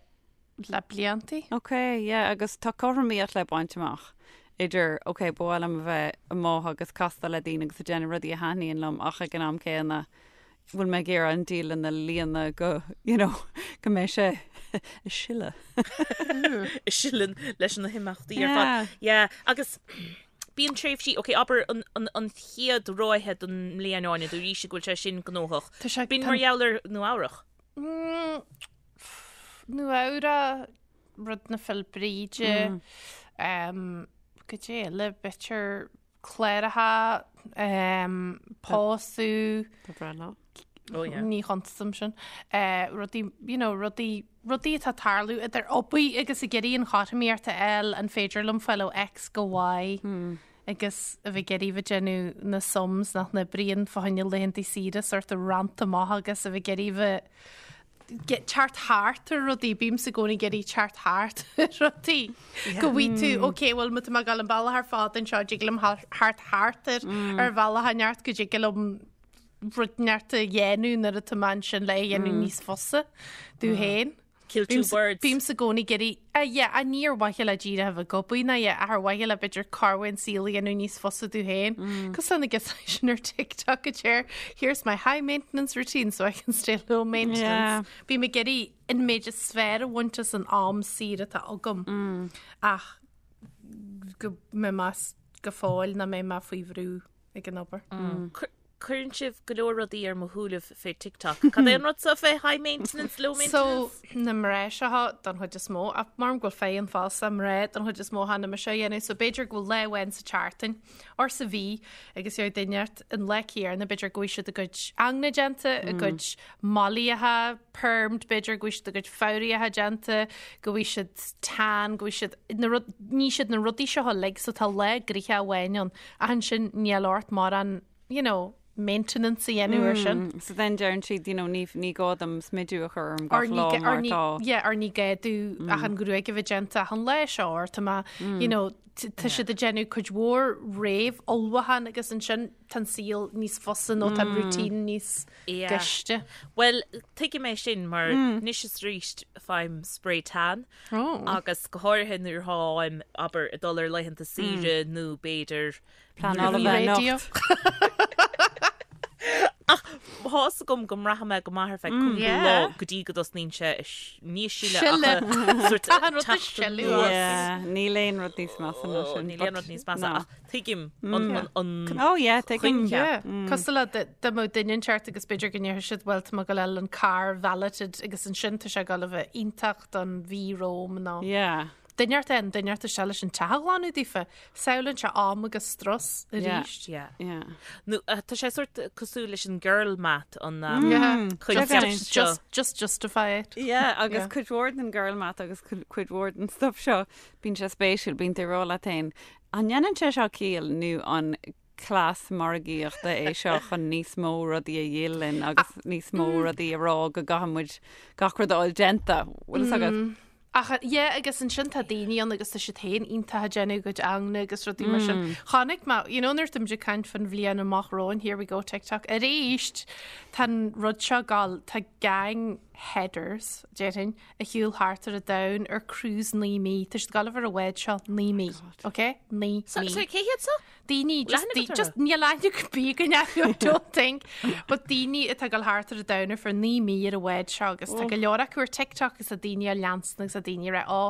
le bliantaí. Ok, yeah, agus tá cothromaíocht le baint amach idir, ok, ba mhaith liom a bheith amuigh agus castáil le daoine agus ag déanamh rudaí a thaitníonn liom ach ag an am céanna, bhfuil mé ag iarraidh an dialann a líonadh go, you know, go mbeidh sé ag sileadh. Ag sileadh leis na himeachtaí ar fad. Yeah, agus bíonn tréimhsí, ok, abair an, an, an chéad ráithe den mbliain Áine, dúraís go bhfuil sé sin gnóthach. Tá sé, Bíonn mar gheall ar Nua Eabhrach. Mm, Nua Eabhrach, rud na Féile Bríde, um, goidé eile, b'fhéidir cláracha, pósadh, Do bhreithlá. Oh yeah. ní chuntasaim sin, rudaí, you know, rudaí, rudaí atá ag tarlú idir obair agus ag iarraidh an chothromaíocht a fháil, an féidir liom fáil ó X go Y. agus a bheith ag iarraidh bheith déanamh na sums nach n-oibríonn fá choinne laethanta saoire sort of rannta amach agus a bheith ag iarraidh bheith teacht thart ar rudaí, bímse i gcónaí ag iarraidh teacht thart ar rudaí. Go bhfaighidh tú, ok, bhuel má tá mé ag dul an bealach ar fad anseo, dtig liom theacht thart ar ar bhealach inteacht go dtig liom rud inteacht a dhéanamh nuair atá mé ansin le é a dhéanamh níos fusa domh féin. Kill two birds. Bímse i gcónaí ag iarraidh, ah yeah, ah ní ar mhaithe le díreach a bheith ag obair ná yeah, ach ar mhaithe le b'fhéidir corruair an saol a dhéanamh níos fusa domh féin. Cosúil na giosáin sin ar TikTok a deir, here's my high maintenance routine so I can stay low maintenance. Bím ag iarraidh an méid is fearr a bhaint as an am saor atá agam ach go mbeidh mé go fóill nach mbeidh mé faoi bhrú ag an obair. Cuireann sibh go leor rudaí ar mo shúilibh fé TikTok. Cad é an rud so fé high maintenance, low maintenance? So, na mná seo don chuid is mó, ach mar go bhfuil feidhm fosta, mná don chuid is mó cheana mise a dhéanamh, so b'fhéidir go bhfuil lá amháin sa tseachtain or sa mhí agus gheobhaidh duine inteacht an lá céanna, b'fhéidir go bhfuil siad a gcuid ingne déanta, a gcuid mallaíocha permed, b'fhéidir go bhfuil siad a gcuid fabhraíocha déanta, go bhfuil siad tan, go bhfuil siad, na rud, ní siad na rudaí seo uilig, so tá lá gnoitheach amháin ann. Ach ansin níl ort mórán, you know, maintenance a dhéanamh ar sin. So then deireann siad, you know, ní, ní gá dom smidiú a chur orm gach lá mar tá. Yeah, or ní gá domh ach an ghruaig a bheith déanta achan lá seo or tá mé, you know, tá siad ag déanamh cuid mhór réamh-ullmhúchán agus ansin tá an saol níos fusa nó tá an routine níos gaiste. Bhuel, tuigim é sin mar anois is arís faighim spray tan Agus go háirithe nuair atáim, abair, ag dul ar laethanta saoire nó b'fhéidir Pleanáil a bheith anocht. Ach tá's agam go mbraithfidh mé go maith ar feadh cúpla lá go dtí go dtosnaíonn sé ní ag sileadh ach sort Tá an rud ag sileadh as. Yeah, níl aon rud níos measa ná sin. Níl aon rud níos measa ach tuigim an Oh yeah, tuigim. coincheap. Cosúil le dá mbeadh duine inteacht agus b'fhéidir go ndéarfadh siad bhuel tá mé ag dul a fháil an car valeted agus ansin tá sé ag dul a bheith iontach don mhí romham nó Yeah. duine inteacht an duine inteacht isteach leis an teach a ghlanadh daofa. Samhlaíonn sé am agus strus arís. Yeah. Yeah. Nó tá sé sort cosúil leis an girl math an um, Yeah. coincheap Just, seo. just, just justify it. Yeah, agus Yeah. cuid mhór den girl math agus cuid mhór den stuff seo, bíonn sé spéisiúil, bíonn tú ag rá leat féin, an ndéanann sé seo ciall nó an cleas margaíochta é seo chun níos mó rudaí a dhíol linn agus níos mó rudaí a rá go gcaithfidh muid gach rud a fháil déanta. Bhfuil fhios agat? Ach yeah, agus ansin tá daoine ann agus tá siad féin iontach ag déanamh a gcuid ingne agus rudaí mar sin. Chonaic mé, you know, nuair táimid ag caint faoin bhliain amach romhainn, here we go, TikTok, arís, tá an rud seo ag gabháil, tá gang headers, déarfainn, ag siúl thart ar an domhan ar cruise 9 mí. Tá siad ag gabháil ar an bhád seo 9 mí, ok? 9 mí. Sorry, cé hiad so? Daoine, just, Leathanach atá just níl aithne ar bith againn orthu, I don't think. But daoine atá ag dul thart ar an domhan ar feadh 9 mí ar an bhád seo agus tá go leor acu ar TikTok agus tá daoine á leanstan agus tá daoine ag rá, ó,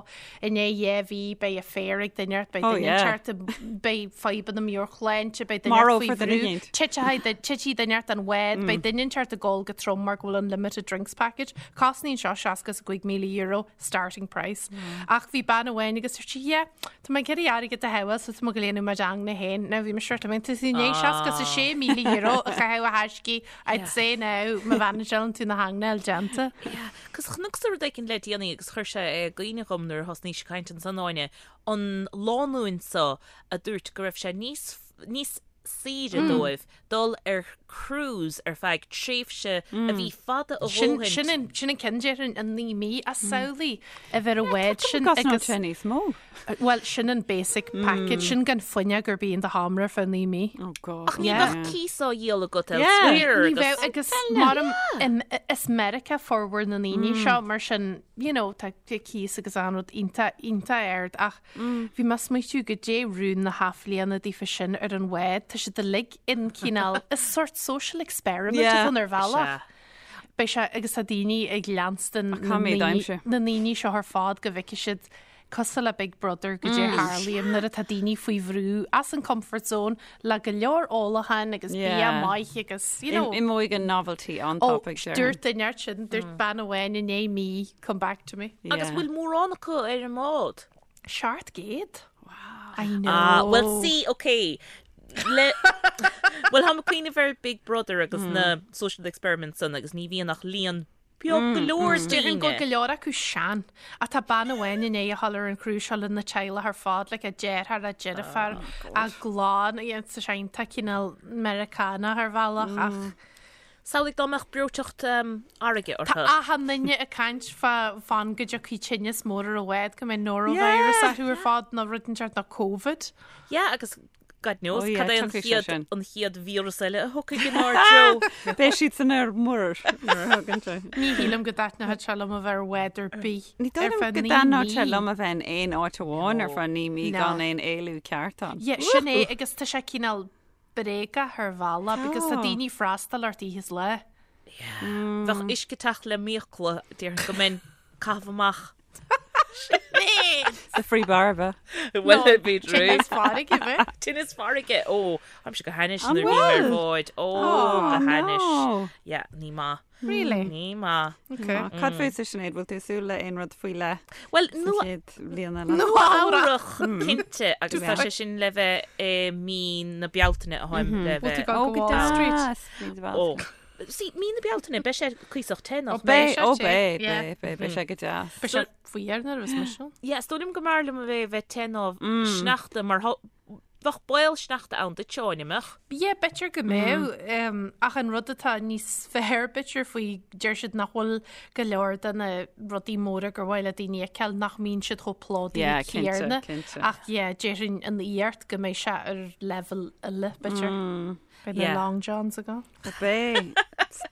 i ndiaidh 2 mhí beidh affair ag duine ort, beidh Oh, duine yeah. inteacht, beidh fadhbanna meabhairshláinte, beidh duine ort faoi Marófar duine bhrú, éicint. titfidh titfidh duine ort den bhád, beidh duine inteacht ag ól go trom mar go bhfuil unlimited drinks package. Cosnaíonn seo €65,000 starting price. Ach bhí bean amháin agus dúirt sí, yeah, Tá mé ag iarraidh airgead a shábháil so tá mé ag dul a dhéanamh m'ingne féin. Now bhí mise sort of tá tú i ndiaidh €66,000 a chaitheamh a thaiscí, I'd say now má mhanageálann tú na haingne a fháil déanta. Yeah, 'cause chonacsa rud éicint le déanaí agus chuir sé i gcuimhne dhom nuair a thosnaís ag caint ansan Áine, an lánúin so a dúirt go raibh sé níos, níos saoire dóibh dul ar cruise ar feadh tréimhse a bhí fada a Sin dhóthain. sin an sin an ceann déarfainn an 9 mí ach samhlaigh a bheith ar an bhád sin Agus agus sé níos mó. bhuel sin an basic package sin gan fuinneog ar bith in do sheomra ar feadh 9 mí. Oh God. Ach ní Yeah. bheadh cíos á dhíol agat Yeah. elsewhere Ní bheadh agus agus mar is Meiriceá formhór na ndaoine seo mar sin you know tá cíos agus an rud iontach iontach ard ach Bhí mé ag smaoitiú goidé rún na hathbhliana daofa sin ar an bhád, tá siad uilig in cineál, is sort social experiment Yeah. atá ann ar bhealach. Sea. Beidh sé, agus tá daoine ag leanstan Ach caithfidh mé d'aimsir. na ndaoine seo ar fad go bhfeicfidh siad cosúil le Big Brother goidé a tharlaíonn nuair atá daoine faoi bhrú as an comfort zone le go leor ólacháin agus bia Yeah. maith agus, you know. Imeoidh an novelty Ó, an-tapaidh, déarfainn. dúirt duine ort sin, dúirt bean amháin i ndiaidh mí, come back to me. Agus Yeah. bhfuil mórán acu ar an mbád? 700. Wow. I know. Ah, well see, ok. Le Well táim ag cuimhneamh ar Big Brother agus na social experiments san agus ní bhíonn ach líon. Beag go leor Déarfainn go daoine. go leor acu sean. Ach tá bean amháin i ndiaidh a dhul ar an cruise seo lena teaghlach ar fad, like a deartháir, a deirfiúr, a gclann, tá sé iontach cineál Meiriceánach ar bhealach ach Samhlaigh dá mbeadh breoiteacht fharraige tá orthu. achan duine ag caint fá fan go dtiocfaidh tinneas mór ar an bhád go mbeidh norovirus orthu ar fad nó rud inteacht nó Covid. Yeah, agus God knows Oh yeah, cad é an tiocfaidh sé chéad sin. an chéad víreas eile a thiocfaidh inár dtreo. Beidh siad san ar muir nuair a thagann sé. Ní shílim go dtaitneodh sé liom a bheith ar bhád ar bith Ní ar dóigh liom feadh go naoi dtaitneodh sé mí. liom a bheith in aon áit amháin ar feadh 9 mí No. gan aon éalú ceart ann. Yeah, sin é agus tá sé cineál bréagach ar bhealach because tá Tá. daoine ag freastal ort oíche is lá. Bheadh uisce ag teacht le m'fhiacla, déarfainn go mbeinn ag caitheamh amach. The free bar bheith. Bhuel, bhí Tinneas farraige bheith. Tinneas farraige ó Táimse go hainnis An nuair a bhím ar bhfuil? bhád ó Oh, go hainnis. no. Yeah, ní maith. Really? Ní maith. Okay. Cad fútsa Sinéad, bhfuil tú ag súil le aon rud faoi leith Well, sa nua chéad bhliain eile? Nua-Eabhrac cinnte agus tá sé sin le bheith i mí na Bealtaine a tháim le Bhfuil tú bheith. ag Ó, go go Wall Street? deas. Mí na Ó. Bealtaine. See, mí na Bealtaine, beidh sé cuíosach te nach Ó, beidh. mbeidh? Ó, sé te, beidh, yeah. beidh, beidh, beidh sé go deas. Beidh sé fuar nuair a bheas mise ann. Yeah, is dóigh liom go mb'fhearr liom a bheith bheith te ná sneachta mar thá- bheadh baol sneachta ann duit, Áine, mbeadh? Yeah, b'fhéidir go mbeadh, ach an rud atá níos fearr b'fhéidir faoi, deir siad nach bhfuil go leor de na rudaí móra gur mhaith le daoine a fheiceáil, nach mbíonn siad chomh plódaithe Yeah, cinnte, céanna. cinnte. Ach yeah, déarfainn an iarracht go mbeidh sé ar leibhéal eile, b'fhéidir. Beidh na Yeah. long johns agam. Beidh.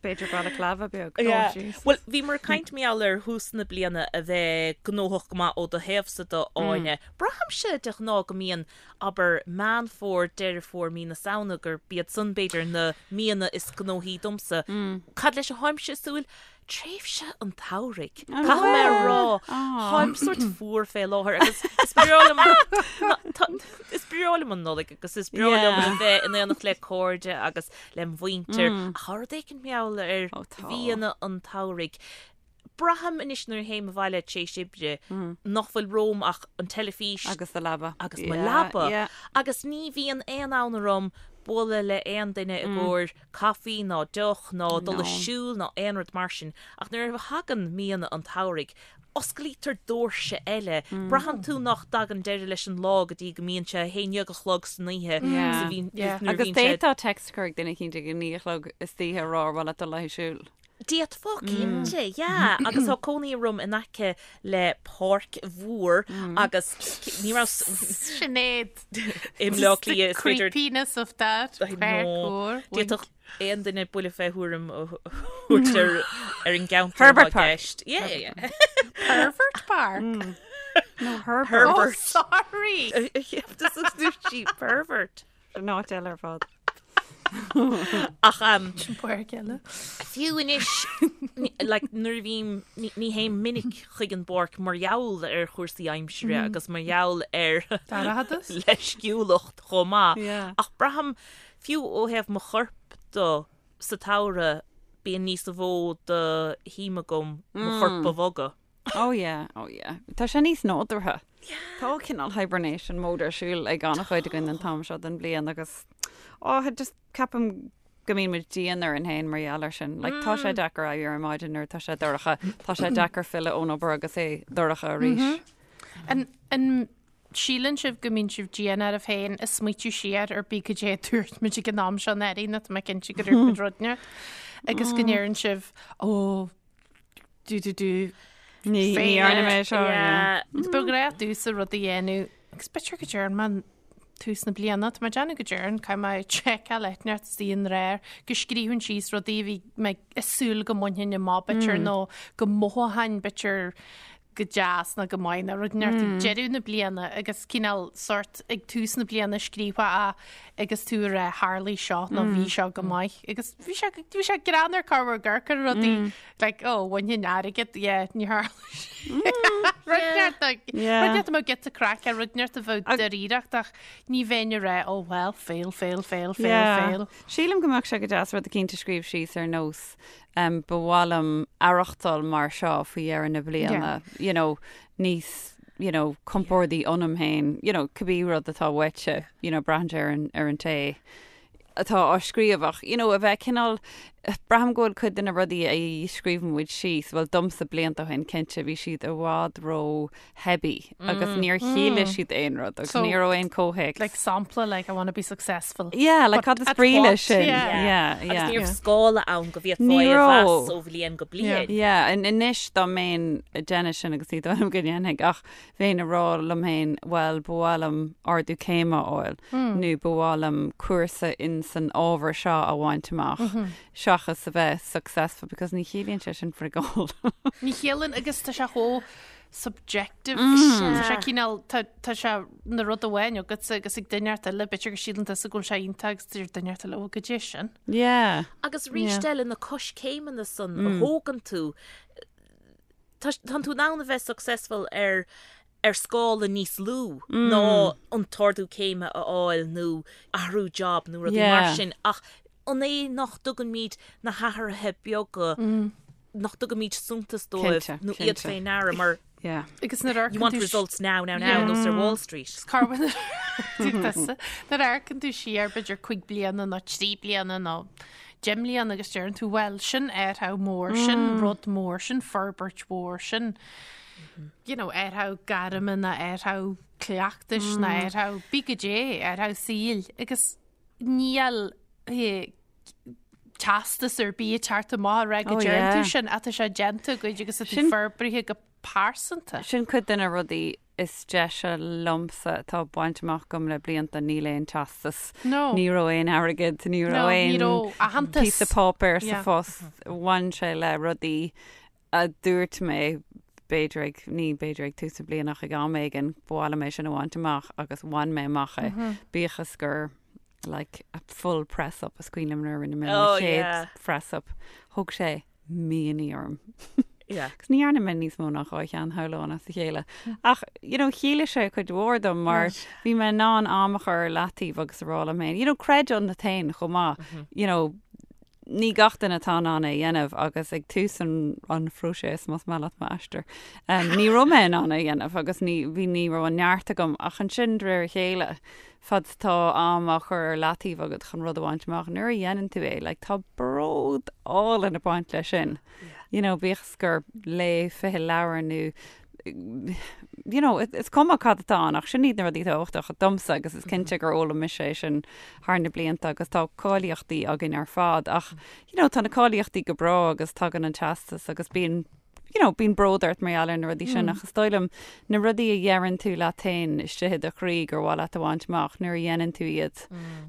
B'fhéidir balaclava beag. Yeah. Jesus. Bhuel, bhíomar ag caint mar gheall ar thús na bliana a bheith gnóthach go maith ó do thaobhsa de, Áine. Braithimse de ghnáth go mbíonn, abair, Meán Fómhair, Deireadh Fómhair, mí na Samhna, gurb iad san b'fhéidir na míonna is gnóthaí domsa. Cad leis a tháimse ag súil? Tréimhse an tsamhraidh. Caithfidh mé a rá, táim sórt fuar fé láthair agus is breá liom is breá liom an Nollaig agus is breá liom a bheith in éineacht le cairde agus lem mhuintir. Ach tá rud éicint mar gheall ar mhíonna an tsamhraidh. Braithim anois nuair a théim abhaile tar éis oibre nach bhfuil romham ach an teilifís Agus do leaba. agus mo leaba. Agus ní bhíonn aon fhonn orm bualadh le aon duine i gcomhair caife ná deoch ná dul ag siúl ná aon rud mar sin. Ach nuair a thagann míonna an tsamhraidh, osclaítear doirse eile. Braitheann tú nach dtagann deireadh leis an lá go dtí go mbíonn sé a haon dhéag a chlog san oíche. Yeah. So bhíonn, nuair a Agus bhíonn sé. d'fhéadfá text a chur ag duine eicínt ag a naoi a chlog istoíche a rá ar mhaith leat dul le haghaidh siúil. D'fhéadfá, cinnte, yeah. Agus tá cónaí orm in aice le páirc mhór agus ní raibh Sinéad. I mBleá Cliath is féidir Creepiness of that. I Páirc know. mhór. D'fhéadfadh aon duine buille fé thuairim a thabhairt ar ar an gceantar Herbert atá i Park. gceist. Yeah, yeah, yeah. Pervert Park. No, Herbert. Oh, Herbert. sorry. Dúirt sí pervert. An áit eile ar fad. Ach um, Sin páirc eile. fiú anois like, nuair a bhím ní ní théim minic chuig an bpáirc mar gheall ar chúrsaí aimsire agus mar gheall ar Dorchadas. leisciúlacht chomh maith. Yeah. Ach braithim fiú ó thaobh mo choirp de sa tsamhradh bíonn níos mó de shuim agam mo chorp a bhogadh. Oh yeah, oh yeah. Tá sé níos nádúrtha. Tá cineál hibernation mode ar siúl ag an-chuid againn an t-am seo den bhliain agus oh, just ceapaim go mbíonn muid dian orainn féin mar gheall air sin. Like, tá sé deacair éirí ar maidin nuair atá sé dorcha, tá sé deacair filleadh ón obair agus é dorcha arís. An, an síleann sibh go mbíonn sibh dian oraibh féin ag smaoitiú siar ar bith cad é a dúirt muid ag an am seo anuraidh nó tá mé cinnte go dúirt muid rud inteacht agus go ndeireann sibh ó do do do Ní ní dhearna mé seo. Yeah. Ba ghnách domhsa rud a dhéanamh agus b'fhéidir go dtearn mé tús na bliana, tá mé ag déanamh go dtearn, caithfidh mé seiceáil inteacht is í an réir, go scríobhainn síos rudaí a bhí mé ag súil go mbainfinn amach b'fhéidir nó go mothóchainn b'fhéidir go deas nó go maith nó rud inteacht ag deireadh na bliana agus cineál sort ag tús na bliana scríofa a agus tú ag rá tharlaigh seo nó bhí seo go maith agus bhí sé bhí sé greannmhar corruair gur gur rudaí like oh bhainfinn airgead yeah ní tharla sé. Rud inteacht like Yeah. rud inteacht a mbeadh giota craic ar rud inteacht a bheadh dáiríreacht ach ní bheinn ag rá oh well fail fail fail fail Yeah. fail. Sílim go mbeadh sé go deas rud eicínt a scríobh síos ar nós um, ba mhaith liom aireachtáil mar seo faoi dheireadh na bliana, you know, níos you know, compordaí ionam féin, you know, cibé rud atá uaitse, you know, braitheann sé ar an, ar an té atá á scríobh ach, you know, a bheith cineál. Braithim go bhfuil cuid de na rudaí a scríobhann muid síos, bhuel domsa blianta ó shin cinnte, bhí siad i bhfad ró-theibí agus níor chiallaigh siad aon rud agus ní raibh aon comhthéacs. Like sampla, like I want to be successful. Yeah, like cad is brí leis sin? Yeah, yeah. Agus ní raibh scála ann go bhféadfá é a mheas ó bhliain go bliain. Yeah, anois dá mbeinn ag déanamh sin agus ní dóigh liom go ndéanfaidh ach bheinn ag rá liom féin, bhuel, ba mhaith liom ardú céime a fháil nó ba mhaith liom cúrsa in san ábhar seo a bhaint amach seachas a bheith successful because ní chiallaíonn sé sin frigeál. Ní chiallaíonn agus tá sé chomh subjective. Tá sé cineál, tá tá sé na rud amháin agatsa agus ag duine inteacht eile, b'fhéidir go síleann tusa go bhfuil sé iontach agus deir duine inteacht eile, ó, goidé sin. Yeah. Agus arís eile na coiscéimeanna san a thógann tú, Tá tú in ann a bheith successful ar ar scála níos lú ná an t-ardú céime a fháil nó athrú job nó rudaí mar sin ach an é nach dtugaimid na hathruithe beaga nach dtugaimid suntas dóibh nó iad fé ndeara mar Agus nuair a you want results now, now, now nós ar Wall Street. Nuair a amharcann tú siar b'fhéidir 5 bliana nó 3 bliana nó 10 mbliana agus deireann tú, bhuel, sin athrú mór, sin rud mór, sin forbairt mhór, sin, you know, athrú gairme nó athrú cleachtais nó athrú bí goidé, athrú saoil agus níl eh, teastas ar bith ag teacht amach ag rá go Oh, deireann tú sin ach tá sé déanta agat agus tá tú Sin- forbraithe go pearsanta. Sin cuid de na rudaí is deise liomsa atá bainte amach agam le blianta, níl aon teastas, No. ní raibh aon airgead, ní raibh aon ní raibh aitheantas. píosa páipéir sa phost, bhain sé le rudaí a dúirt mé b'fhéidir ag, ní b'fhéidir ag tús na bliana ach ag am éigin, ba mhaith liom é sin a bhaint amach agus bhain mé amach é, bíodh is gur like a full press up is cuimhin liom nuair a rinne mé mo chéad press up, thóg sé míonna orm. Yeah. Agus ní dhearna mé níos mó ná 2 cheann shamhlóinn as a chéile. Ach, you know, chiallaigh sé cuid mhór dom mar bhí mé in ann am a chur ar leataobh agus a rá liom féin, you know, creid ionat féin chomh maith, you know, ní gach duine atá in ann é a dhéanamh agus ag tús an, an phróiseas, más maith leat m'aistear, um, ní raibh mé in ann é a dhéanamh agus ní, bhí, ní raibh an neart agam ach ansin de réir a chéile, fad is atá am á chur ar leataobh agat chun rud a bhaint amach, nuair a dhéanann tú é, like, tá bród álainn ag baint leis sin. You know, bíodh is gur léigh 20 leabhar nó you know, is cuma cad atá ann ach sin iad na rudaí tábhachtacha domsa agus is cinnte gur fhoghlaim mise é sin thar na blianta agus tá cáilíochtaí againn ar fad ach you know, tá na cáilíochtaí go breá agus tagann an teastas agus bíonn you know, bíonn bród ort mar gheall ar na rudaí sin ach is dóigh liom na rudaí a dheireann tú leat féin istigh i do chroí gur mhaith leat a bhaint amach nuair a dhéanann tú iad,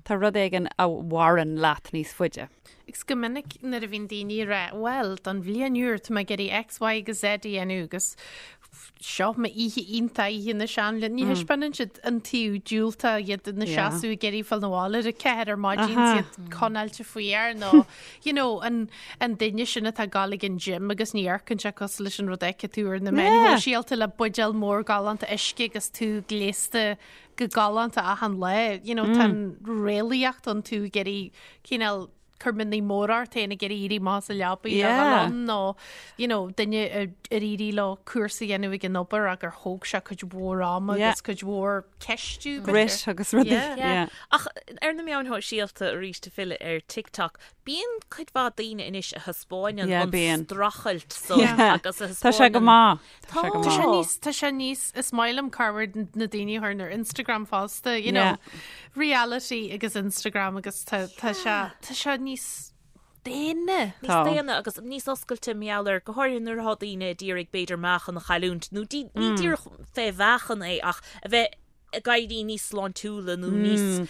tá rud éigin a mhaireann leat níos faide. Agus go minic nuair a bhíonn daoine ag rá, bhuel, don bhliain úr tá mé ag iarraidh X, Y agus Z a dhéanamh agus seo m'oíche iontach, oíche na seanbhliana. Ní thaispeánann siad an taobh diúltach, iad ina seasamh ag iarraidh fáil 'na bhaile ar a ceathair ar maidin, iad conáilte faoi aer nó you know, an, an duine sin atá ag gabháil ag an gym agus ní amharcann sé cosúil leis an rud a fheiceann tú ar na meáin shóisialta le buidéal mór galánta uisce agus tú gléasta go galánta achan lá. You know, tá an réalaíocht ann tú ag iarraidh cineál cur mianaigh móra ort féin ag iarraidh éirí amach as an leabaidh le Yeah. dhul ann nó you know, duine ar ar éirigh leo cúrsa a dhéanamh ag an obair ach gur thóg sé cuid mhór ama Yeah. agus cuid mhór ceistiú b'fhéidir. Grit agus rudaí. Yeah. Yeah. Ach ar na meáin shóisialta arís ag filleadh ar TikTok, bíonn cuid mhaith daoine anois a thaispeáineann Yeah, an bíonn. streachailt san Yeah. agus a Tá sé go thaispeáineann maith. Tá sé go Tá sé maith. níos, tá sé níos, is maith liom corruair na daoine a chuireann ar Instagram fosta, you know, Yeah. reality agus Instagram agus tá, tá sé, tá sé níos daonna. níos Tá. daonna agus níos oscailte mar gheall air, go háirithe nuair atá daoine ag iarraidh b'fhéidir meáchan a chailliúint nó dí, ní díreach fé mheáchan é ach a bheith ag éirí níos sláintiúla nó níos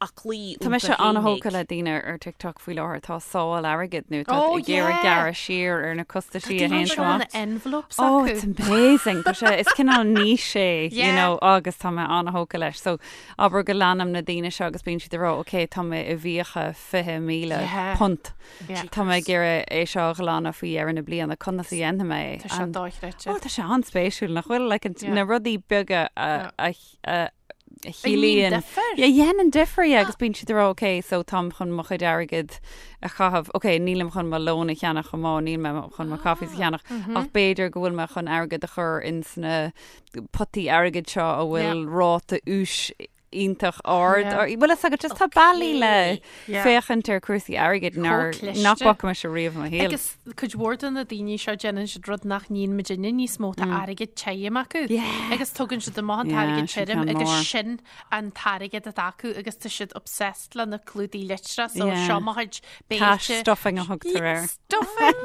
aclaí Tá mise an-thógtha le daoine ar TikTok faoi láthair atá ag sábháil airgid nó tá Oh, ag iarraidh yeah. gearradh siar ar na costaisí a théann Tá amach. na envelopes Oh, acu. it's amazing. Tá sé, is cineál niche é, you Yeah. know, agus tá mé an-thógtha leis. So, abair go leanaim na daoine seo agus bíonn siad ag rá, ok, tá mé i bhfiacha 20,000 Yeah. punt. Yeah. Tá mé ag iarraidh é seo a ghlanadh faoi dheireadh na bliana, conas a dhéanfaidh mé é? Tá sé And- dochreidte. Oh, tá sé an-spéisiúil, nach bhfuil? Like, an- Yeah. na rudaí beaga a, a, a, a chiallaíonn chiallaíonn. difear. Yeah, dhéanann difear, yeah, agus bíonn siad ag rá, ok, so táim chun mo chuid airgid a chaitheamh, ok, nílim chun mo lón a cheannach chomh maith, níl mé chun mo coffees a cheannach, ach b'fhéidir go bhfuil mé chun airgead a chur ins na potaí airgid seo a bhfuil ráta úis iontach ard. Bhfuil fhios agat, just tá bealaí le féachaint ar cúrsaí airgid nár nach bhfaca mise riamh i mo shaol. Agus cuid mhór de na daoine seo déanann siad rud nach ndéanann muidinne níos mó, tá airgead tirim acu. Agus tugann siad amach an t-airgead tirim agus sin an t-airgead atá acu agus tá siad obsessed le na clúdaigh litreach so seo mo chuid béilte. Cash stuffing a thugtar air. Stuffing!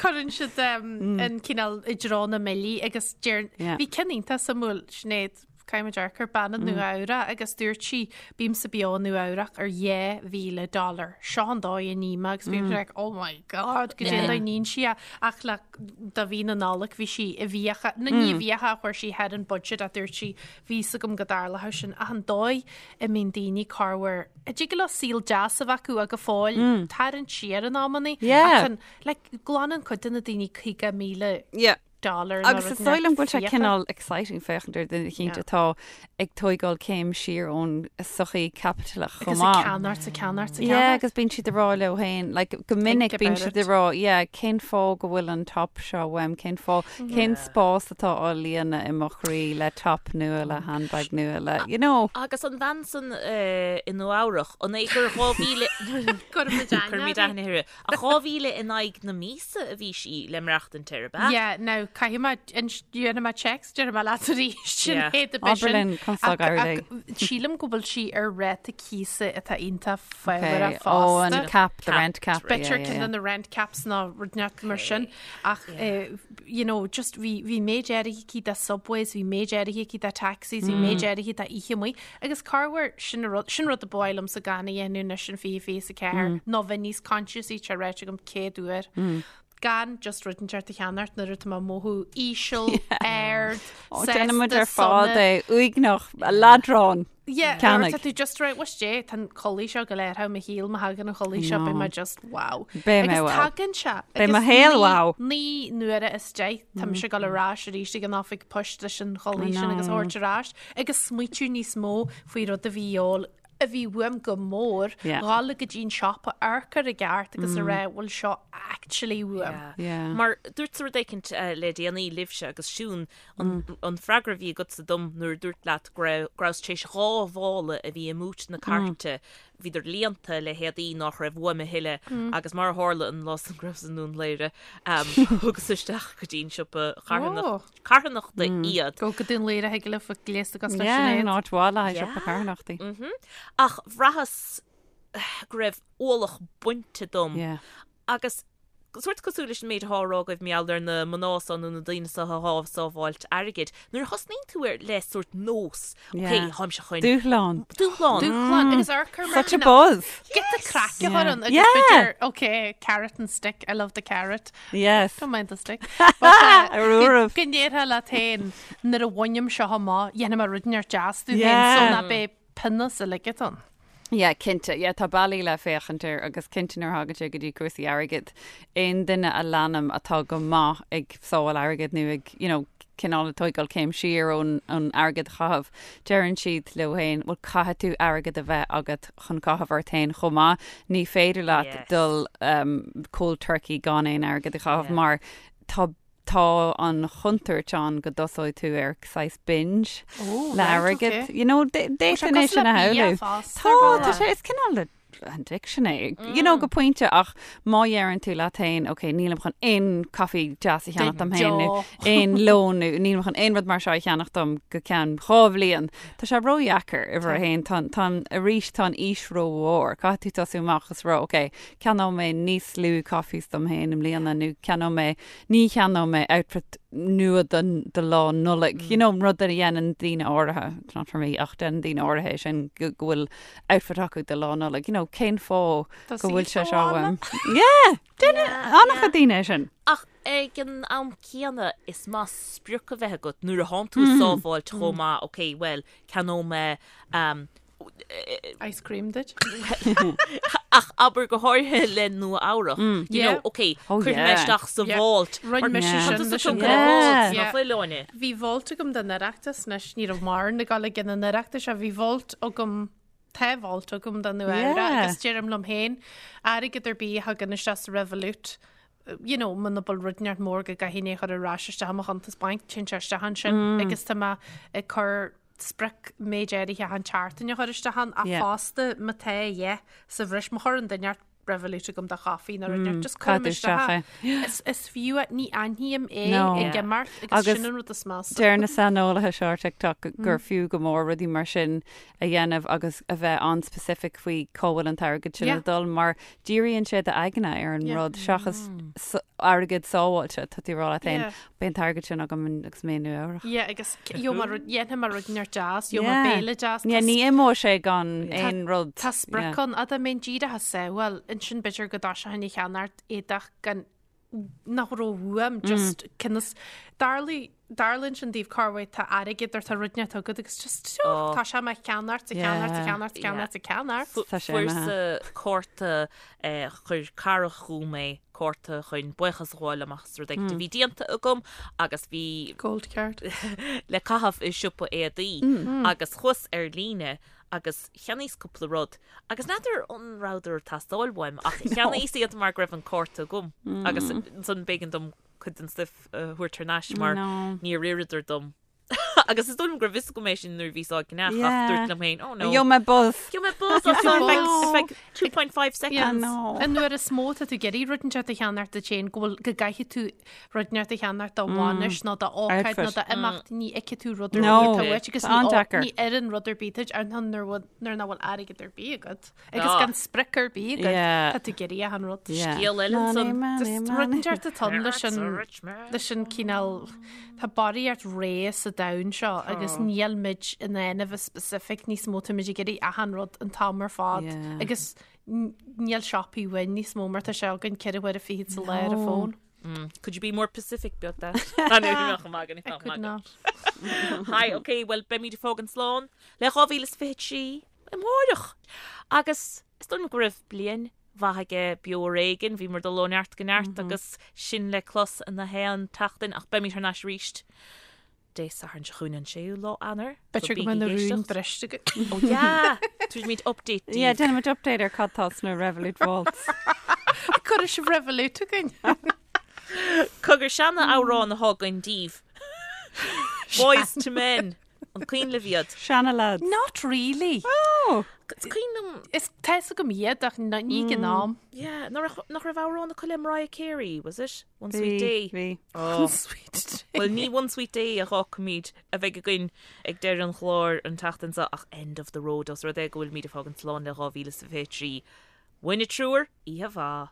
Cuireann siad an cineál i dtreo na mbillí agus deir, bhí ceann iontach suimiúil, Sinéad, Caithfidh muid amharc ar bean i Nua Eabhrac agus dúirt sí, bímse beo i Nua Eabhrac ar 2,000 dollar. Seo an dóigh a ním agus bhí like, oh my god, goidé an dóigh a níonn sí é. Ach le do mhí na Nollag bhí sí i bhfiacha, nó ní i bhfiacha a chuir sí thar an budget a dúirt sí, bhí fhios agam go dtarlódh sin. Ach an dóigh a mbíonn daoine corruair, a dtig leo saol deas a bheith acu ach go fóill tarraingt siar in amannaí. Yeah. Ach an, like, glanann cuid de na daoine 50,000 Yeah. dollar nó Agus rud is dóigh liom go bhfuil sé fiacha. cineál exciting féachaint ar duine eicínt Yeah. atá ag tóigeáil céim siar ón sochaí caipitileach chomh Agus ag maith. ceannacht 's ag ceannacht 's ag Yeah, ceannacht. agus bíonn siad ag rá leo féin, like, go minic bíonn about siad it. ag rá, yeah, cén fáth go bhfuil an top seo uaim, cén fáth, cén spás atá á líonadh i mo chroí le top nua, le handbag nua, le, you know. Agus an bhean san eh, i Nua Eabhrach, an é gur 2000 Cuirfimid aithne Cuirfimid uirthi. aithne uirthi. Ach 2,000 in aghaidh na míosa a bhí sí le maireachtaint air, ab ea? Yeah, now, caithfidh mé, déanfaidh mé text, déarfaidh mé leat arís, sin Yeah. é do b'shin. Abair linn, conas tá ag éirí léi. Sílim go bhfuil sí ar ráta cíosa atá iontach fabhrach Okay. Oh, an fosta. cap, the rent cap. B'fhéidir yeah, yeah, ceann yeah. de na rent caps nó rud inteacht mar sin. Ach, eh, you know, just bhí, bhí méid áirithe aici de subways, bhí méid áirithe aici de taxis, bhí méid áirithe de oíche amuigh. Agus corruair, sin rud, sin rud a ba mhaith liomsa gan a dhéanamh anois in 2024, ná bheith níos conscious-í, tá ráite agam 100 uair. Gan just rud inteacht a cheannacht nuair atá mé ag mothú íseal, ard, Ó, déanann muid sásta, ar fad sona. é, uaigneach, leadrán. Yeah, Ceannaigh. tá tú just right, what's dé, tá an chulaith seo go léir thar mo shaol, má thagann an chulaith seo, beidh mé just wow. Beidh mé Agus wow. tagann sé. Beidh mo Agus shaol wow. Naoi n-uaire as 10, tá mise ag dul ar ais arís ag an oifig poist leis an chulaith sin agus a thabhairt ar ais. Agus smaoitiú níos mó faoi rud a bhí ól, a bhí uaim go mór, Yeah. dhul go dtí an siopa amharc air i gceart agus a rá bhfuil seo actually uaim. Yeah. Mar dúirt rud éicint le déanaí libhse agus Siún an, an freagra a bhí agatsa dom nuair a dúirt leat go raibh go rabhas tar éis dhá mhála a bhí i mbúit na cairte Bhíodar líonta le héadaí nách raibh uaim a thuilleadh agus mar a tharla an lá san go rabhas i nDún Laoghaire, thugas isteach go dtí an siopa carthanachta iad. Go go Dún Laoghaire thig libh a gléasta cosúil le Yeah, Sinéad. an áit mhaith le haghaidh siopa carthanachtaí. Ach bhraitheas go raibh ualach bainte dom Yeah. Agus sórt cosúil leis an méid atá á rá agaibh mar gheall ar na mná so nó na daoine so atá ag sábháilt airgid, nuair a thosnaíonn tú ar le sórt nós, ok, Yeah. táimse chun Dúshlán. dúshlán. Dúshlán agus amharc air mar Such a cineál- buzz. Get the craic a chur ann agus Yeah. b'fhéidir, ok, carrot and stick, I love the carrot. Yes. Don't mind the stick. But, uh, Ar uairibh. Go ndéarfá leat féin nuair a bhainim seo amach, dhéanfaidh mé rud inteacht deas domh féin Yeah. so ná beidh pionós uilig ann. Yeah, cinnte. Yeah, tá bealaí le féachaint air agus cinnte nuair a thagann sé go dtí cúrsaí airgid, aon duine a leanaim atá go maith ag sábháil airgid nó ag, you know, cineál ag tóigeáil céim siar ón ón airgead a chaitheamh, deireann siad leo féin, bhuel caithfidh tú airgead a bheith agat chun caitheamh ort féin chomh maith. Ní féidir leat Yes. dul um, cold turkey gan aon airgead a chaitheamh Yeah. mar tá tá an chontúirt ann go dtosóidh tú ar saghas binge le airgead. You know, d'fhéadfainn é sin a shamhlú. Tá, tá sé, is cineál de addiction é, you know, go pointe ach má dheireann tú leat féin, ok, nílim chun aon caife deas a cheannach dom féin nó aon lón nó nílim chun aon rud mar seo a cheannach dom go ceann dhá bhliain. Tá sé ródheacair, uimhir a haon, tá, tá, arís tá an fhís rómhór. Caithfidh tú tosú amach agus rá, ok, ceannóidh mé níos lú coffees dom féin i mbliana nó ceannóidh mé Ní cheannóidh mé outfit nua don do lá Nollag. You know, rud a dhéanann daoine áirithe, it's not for me, ach déanann daoine áirithe é sin go go bhfuil outfit acu do lá Nollag. You know, cén fáth Tá go bhfuil sé saol seo uaim. uaim? Yeah! Déanann an-chuid daoine é sin. Ach ag an am céanna, is maith sprioc a bheith agat nuair a thánn tú ag sábháilt chomh maith, ok, bhuel, ceannóidh mé Ice cream duit. Ach abair go háirithe le Nua Eabhrach. You know, ok, Oh, cuirfidh mé yeah. isteach sa Yeah. vault. Rinne mise Yeah. sin Tá tusa leis an tógtha le Yeah. vault, Yeah. ná fuil, Áine? Bhí vault agam don Oireachtas anois, ní raibh mórán ag dul ag an Oireachtas, ach bhí vault agam, tá vault agam don Nua Eabhrac Yeah. agus deirim liom féin, airgead ar bith a thagann isteach sa Revolut, you know, muna bhfuil rud inteacht mór go gcaithfinn é a chur ar ais isteach i mo chuntas bainc, téann sé isteach ansin agus tá mé ag cur sprioc méid áirithe achan tseachtain a chur isteach ann ach fosta má tá a dhath sa bhreis má chuireann duine inteacht Revolut agam do chaife nó rud inteacht just cuirim isteach é. Is fiú é, ní aithním é ag imeacht agus sin an rud is measa. Deir na saineolaithe seo ar TikTok gur fiú go mór rudaí mar sin a dhéanamh agus a bheith an-specific faoi cá bhfuil an t-airgead sin ag dul mar díríonn sé d'aigne ar an rud seachas airgead sábháilte, tá tú ag rá leat féin, beidh an t-airgead sin agam agus mé i Nua Eabhrac. Yeah, agus gheobhaidh mé rud, dhéanfaidh mé rud inteacht deas, gheobhaidh mé béile deas. Yeah, ní imeoidh sé gan aon rud. Tá sprioc ann, dá mbeinn díreach ag sábháil, ansin b'fhéidir go dtosóinn ag ceannacht éadach gan nach raibh uaim, just conas, darlaigh, darlaíonn sin daoibh cá bhfuil tá airgead or tá rud inteacht agat agus just, oh, tá sé ag ceannacht, ag ceannacht, ag ceannacht, ag ceannacht, ag ceannacht. Tá sé Fuaireas-sa cárta, chuir cara chugam é, cárta chun buíochas a ghabháil liom as rud éigin a bhí déanta agam agus bhí Gold card. le caitheamh i siopa éadaí agus chuas ar líne agus cheannaíos cúpla rud agus n'fheadar an rabhadar ag teastáil uaim ach cheannaíos iad mar go raibh an cárta agam agus ansan b'éigean dom cuid den stuif a thabhairt thar n-ais mar níor oireadar dom. Agus is dóigh liom go raibh fhios agam é sin nuair a bhíos á gceannach ach dúirt liom féin, oh no. Gheobhaidh mé buzz. Gheobhaidh mé buzz as ar feadh ar feadh 2.5 seconds. An uair is mó tá tú ag iarraidh rud inteacht a cheannacht duit féin go bhfuil go gcaithfidh tú rud inteacht a cheannacht do bhainis nó do ócáid nó do imeacht ní fheicfidh tú rud ar bith atá uait agus ní oireann rud ar bith duit ar nuair nuair nach bhfuil airgead ar bith agat. Agus gan sprioc ar bith agat, tá tú ag iarraidh achan rud. Scéal eile ansan. Just rud inteacht atá ann leis an leis an cineál tá barraíocht rogha sa domhan seo agus níl muid in ann a bheith specific níos mó tá muid ag iarraidh achan rud an t-am ar fad agus níl siopaí uainn níos mó mar tá sé againn 24 huaire sa lá ar an bhfón. Could you be more Pacific about that? I could not. Hi, ok, well beimid ag fágaint slán le 2023. Amárach! Agus is dóigh liom go raibh bliain mhaith aige Beo Ar Éigean, bhíomar ag dul ó neart go neart agus sin le clos na haon tseachtain ach beimid thar n-ais arís Dé Sathairn seo chugainn an séú lá Eanáir. B'fhéidir go mbeidh na rúin briste againn. Ó yeah! Tabharfaimid update daoibh. Yeah, déanfaimid update ar cad tá sna Revolut Vaults. Cuirfidh sibh Revolut againn. Cogar seana amhrán atá againn daoibh. Boyz II Men. An cuimhin libh iad? Seana lads. Not really. Oh! Is cuimhin liom. Is tá fhios agam iad ach ní ag an am. Yeah, nach raibh amhrán acu le Mariah Carey, was it? One Sweet Day? Bhí. Oh. One Sweet Day. Well, ní One Sweet Day a fhágfaimid a bheidh againn ag deireadh an chláir an tseachtain seo ach End of the Road os rud é go bhfuilimid ag fágaint slán le 2023. Uainne triúr, oíche mhaith.